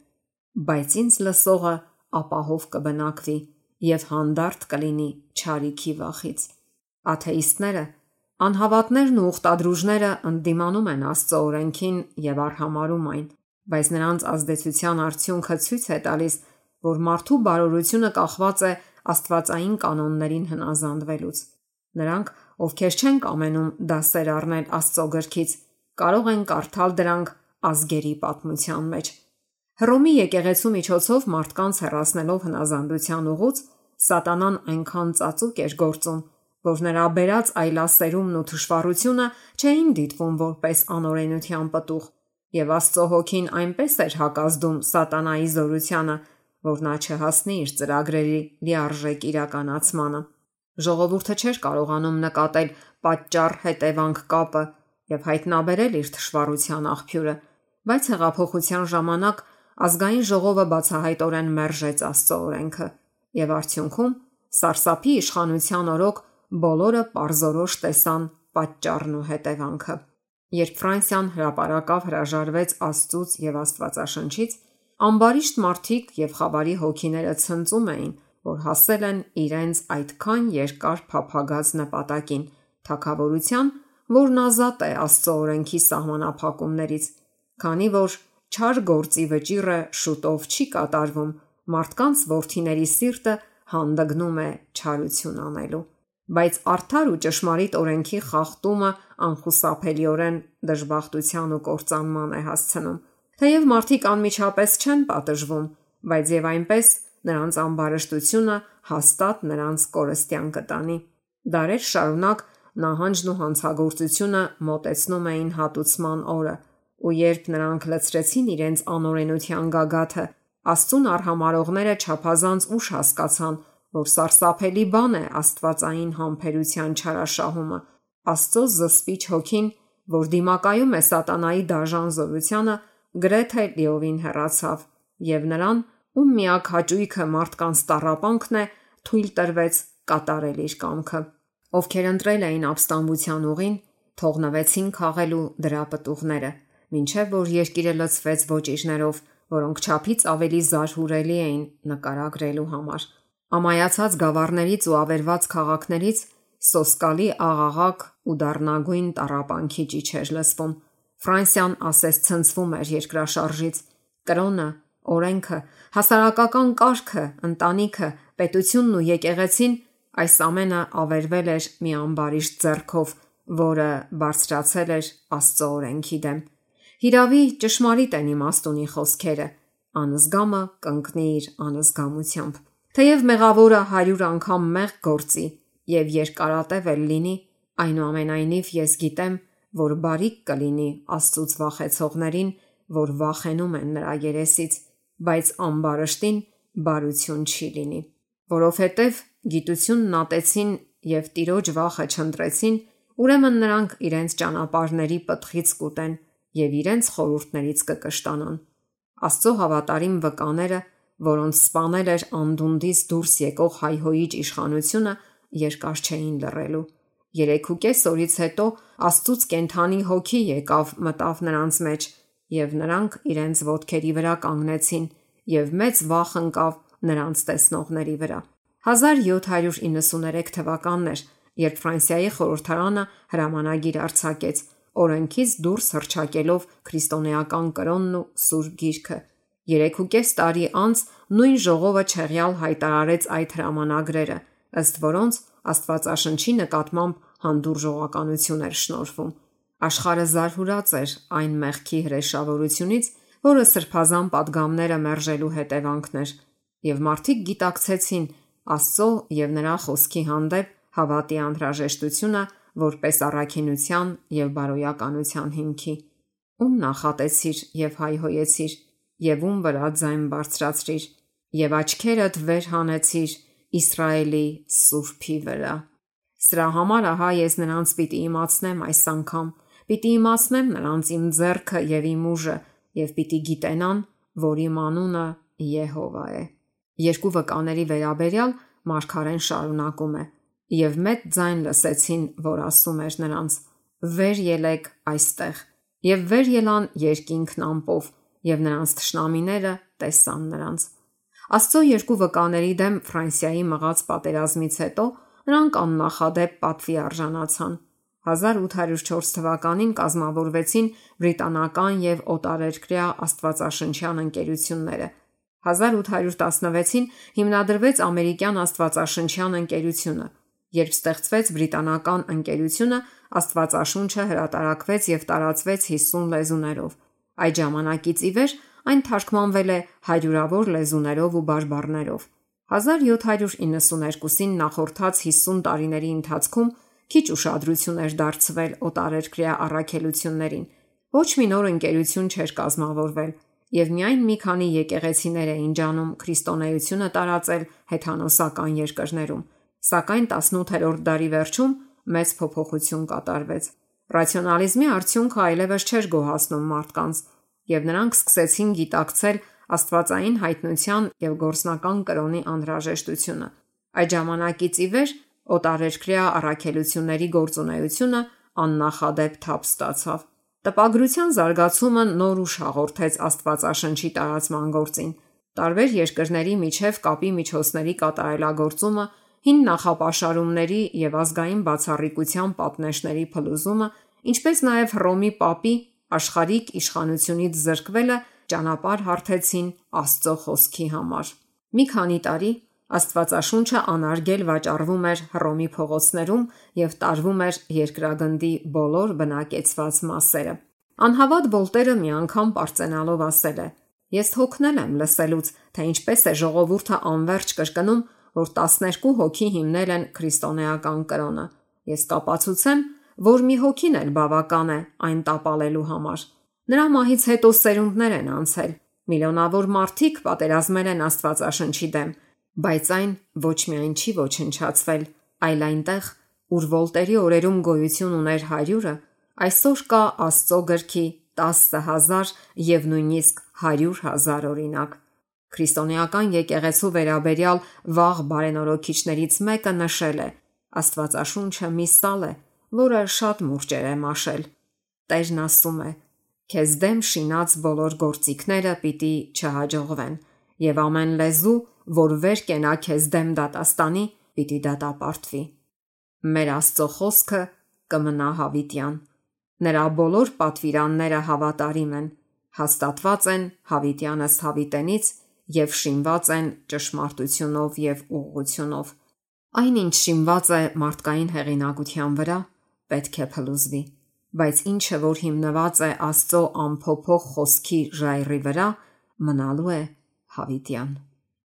բայց ինձ լսողը ապահով կբնակվի եւ հանդարտ կլինի չարիքի վախից։ Աթեիստները, անհավատներն ու ուխտադրուժները ընդդիմանում են Աստծո օրենքին եւ արհամարում այն, բայց նրանց ազդեցության արդյունքը ցույց է տալիս, որ մարդու բարօրությունը կախված է աստվածային կանոններին հնազանդվելուց։ Նրանք, ովքեր չեն կամենում դասեր առնել Աստծո գրքից, կարող են կարդալ դրանք ազգերի պատմության մեջ։ Հռոմի եկեղեցու միջոցով մարդկանց հեռացնելով հնազանդության ուղուց, սատանան այնքան ծածուկ էր գործում, որ նրա բերած այլասերումն ու թշվառությունը չէին դիտվում որպես անօրենության պտուղ, եւ Աստծո հոգին այնպես էր հակազդում սատանայի զորությանը, որ նա չհասնի իր ծրագրերի լիարժեք իրականացմանը։ Ժողովուրդը չէր կարողանում նկատել պատճառ-հետևանք կապը եւ հայտնաբերել իր թշվառության աղբյուրը, բայց հեղափոխության ժամանակ ազգային ժողովը բացահայտորեն մերժեց Աստծո օրենքը եւ արդյունքում սարսափի իշխանության օրոք բոլորը պարզորոշ տեսան պատճառն ու հետևանքը։ Երբ Ֆրանսիան հրապարակավ հրաժարվեց Աստծուց եւ Աստվածաշնչից, ամբարիշտ մարդիկ եւ խավարի հոգիները ցնծում էին, որ հասել են իրենց այդքան երկար փափագած նպատակին, թագավորության, որն ազատ է Աստծո օրենքի սահմանափակումներից, քանի որ չար գործի վճիռը շուտով չի կատարվում, մարդկանց որդիների սիրտը հանդգնում է չարություն անելու։ Բայց արդար ու ճշմարիտ օրենքի խախտումը անխուսափելիորեն դժբախտության ու կործանման է հասցնում։ Թեև մարդիկ անմիջապես չեն պատժվում, բայց եւ այնպես նրանց ամբարշտությունը հաստատ նրանց կորստյան կտանի։ Դարեր շարունակ նահանջն ու հանցագործությունը մոտեցնում էին հատուցման օրը, ու երբ նրանք լցրեցին իրենց անօրենության գագաթը, Աստծուն արհամարողները չափազանց ուշ հասկացան, որ սարսափելի բան է աստվածային համբերության չարաշահումը։ Աստծո զսպիչ հոգին, որ դիմակայում է սատանայի դաժան զորությանը, գրեթե լիովին հեռացավ, եւ նրան, ում միակ հաճույքը մարդկանց տառապանքն է, թույլ տրվեց կատարել իր կամքը։ Ովքեր ընտրել էին ապստամբության ուղին, թողնվեցին քաղելու դրա պտուղները, մինչև որ երկիրը լցվեց ոճիժներով, որոնք չափից ավելի զարհուրելի էին նկարագրելու համար։ Ամայացած գավառներից ու ավերված քաղաքներից սոսկալի աղաղակ ու դառնագույն տառապանքի ճիչ էր լսվում։ Ֆրանսիան ասես ցնցվում էր երկրաշարժից։ Կրոնը, օրենքը, հասարակական կարգը, ընտանիքը, պետությունն ու եկեղեցին, այս ամենը ավերվել էր մի ամբարիշտ ձեռքով, որը բարձրացել էր Աստծո օրենքի դեմ։ Հիրավի ճշմարիտ են իմաստունի խոսքերը. անզգամը կընկնի իր անզգամությամբ։ Թեև մեղավորը 100 անգամ մեղք գործի եւ երկարատև էլ լինի, այնուամենայնիվ ես գիտեմ, որ բարիք կլինի Աստծուց վախեցողներին, որ վախենում են նրա երեսից, բայց ամբարշտին բարություն չի լինի, որովհետև գիտությունն ատեցին եւ Տիրոջ վախը չընտրեցին, ուրեմն նրանք իրենց ճանապարհների պտղից կուտեն եւ իրենց խորհուրդներից կկշտանան։ Աստծո հավատարիմ վկաները, որոնց սպանել էր անդունդից դուրս եկող հայհոյիչ իշխանությունը, երկար չէին լռելու։ 3.5 օրից հետո Աստծուց կենդանի հոգի եկավ մտավ նրանց մեջ, եւ նրանք իրենց ոտքերի վրա կանգնեցին, եւ մեծ վախ ընկավ նրանց տեսնողների վրա։ 1793 թվականն էր, երբ Ֆրանսիայի խորհրդարանը հրամանագիր արձակեց, օրենքից դուրս հռչակելով քրիստոնեական կրոնն ու Սուրբ Գիրքը։ 3.5 տարի անց նույն ժողովը չեղյալ հայտարարեց այդ հրամանագրերը, ըստ որոնց Աստվածաշնչի նկատմամբ հանդուրժողականություն էր շնորհվում։ Աշխարհը զարհուրած էր այն մեղքի հրեշավորությունից, որը սրբազան պատգամները մերժելու հետևանքն էր, եւ մարդիկ գիտակցեցին Աստծո եւ նրա խոսքի հանդեպ հավատի անհրաժեշտությունը որպես առաքինության եւ բարոյականության հիմքի։ Ում նախատեցիր եւ հայհոյեցիր, եւ ում վրա ձայն բարձրացրիր, եւ աչքերդ վեր հանեցիր Իսրայելի Սուրբի վրա։ Սրա համար ահա ես նրանց պիտի իմացնեմ այս անգամ, պիտի իմացնեմ նրանց իմ ձեռքը եւ իմ ուժը, եւ պիտի գիտենան, որ իմ անունը Եհովա է։ Երկու վկաների վերաբերյալ մարգարեն շարունակում է. եւ մեծ ձայն լսեցին, որ ասում էր նրանց. վեր ելեք այստեղ, եւ վեր ելան երկինքն ամպով, եւ նրանց թշնամիները տեսան նրանց։ Աստծո երկու վկաների դեմ Ֆրանսիայի մղած պատերազմից հետո նրանք աննախադեպ պատվի արժանացան։ 1804 թվականին կազմավորվեցին բրիտանական եւ օտարերկրյա աստվածաշնչյան ընկերությունները։ 1816-ին հիմնադրվեց ամերիկյան աստվածաշնչյան ընկերությունը։ Երբ ստեղծվեց բրիտանական ընկերությունը, Աստվածաշունչը հրատարակվեց եւ տարածվեց 50 լեզուներով։ Այդ ժամանակից ի վեր այն թարգմանվել է հարյուրավոր լեզուներով ու բարբառներով։ 1792-ին նախորդած 50 տարիների ընթացքում քիչ ուշադրություն էր դարձվել օտարերկրյա առաքելություններին։ Ոչ մի նոր ընկերություն չէր կազմավորվել եւ միայն մի քանի եկեղեցիներ էին ջանում քրիստոնեությունը տարածել հեթանոսական երկրներում։ Սակայն 18-րդ դարի վերջում մեծ փոփոխություն կատարվեց։ Ռացիոնալիզմի արդյունքը այլևս չէր գոհացնում մարդկանց, եւ նրանք սկսեցին գիտակցել աստվածային հայտնության եւ գործնական կրոնի անհրաժեշտությունը։ Այդ ժամանակից ի վեր օտարերկրյա առաքելությունների գործունեությունը աննախադեպ թափ ստացավ։ Տպագրության զարգացումը նոր ուժ հաղորդեց Աստվածաշնչի տարածման գործին։ Տարբեր երկրների միջև կապի միջոցների կատարելագործումը, հին նախապաշարումների եւ ազգային բացառիկության պատնեշների փլուզումը, ինչպես նաև Հռոմի պապի աշխարհիկ իշխանությունից զրկվելը ճանապարհ հարթեցին Աստծո խոսքի համար։ Մի քանի տարի Աստվածաշունչը անարգել վաճառվում էր Հռոմի փողոցներում եւ տարվում էր երկրագնդի բոլոր բնակեցված մասերը։ Անհավատ Վոլտերը մի անգամ պարծենալով ասել է. «Ես հոգնել եմ լսելուց, թե ինչպես է ժողովուրդը անverջ կրկնում, որ 12 հոգի հիմնել են քրիստոնեական կրոնը։ Ես կապացուցեմ, որ մի հոգին էլ բավական է այն տապալելու համար։ Նրա մահից հետո սերունդներ են անցել, միլիոնավոր մարդիկ պատերազմել են Աստվածաշնչի դեմ, բայց այն ոչ միայն չի ոչնչացվել, այլ այնտեղ, ուր Վոլտերի օրերում գոյություն ուներ 100-ը, այսօր կա Աստծո գրքի 10,000 եւ նույնիսկ 100,000 օրինակ։ Քրիստոնեական եկեղեցու վերաբերյալ վաղ բարենորոքիչներից մեկը նշել է. Աստվածաշունչը մի սալ է, որը շատ մուրճեր է մաշել։ Տերն ասում է. քեզ դեմ շինած բոլոր գործիքները պիտի չհաջողվեն, եւ ամեն լեզու, որ վեր կենա քեզ դեմ դատաստանի, պիտի դատապարտվի։ Մեր Աստծո խոսքը կմնա հավիտյան։ Նրա բոլոր պատվիրանները հավատարիմ են, հաստատված են հավիտյան ըստ հավիտենից և շինված են ճշմարտությունով և ուղղությունով։ Այնինչ շինված է մարդկային հեղինակության վրա, պետք է փլուզվի, բայց ինչը, որ հիմնված է Աստծո անփոփոխ խոսքի ժայռի վրա, մնալու է հավիտյան։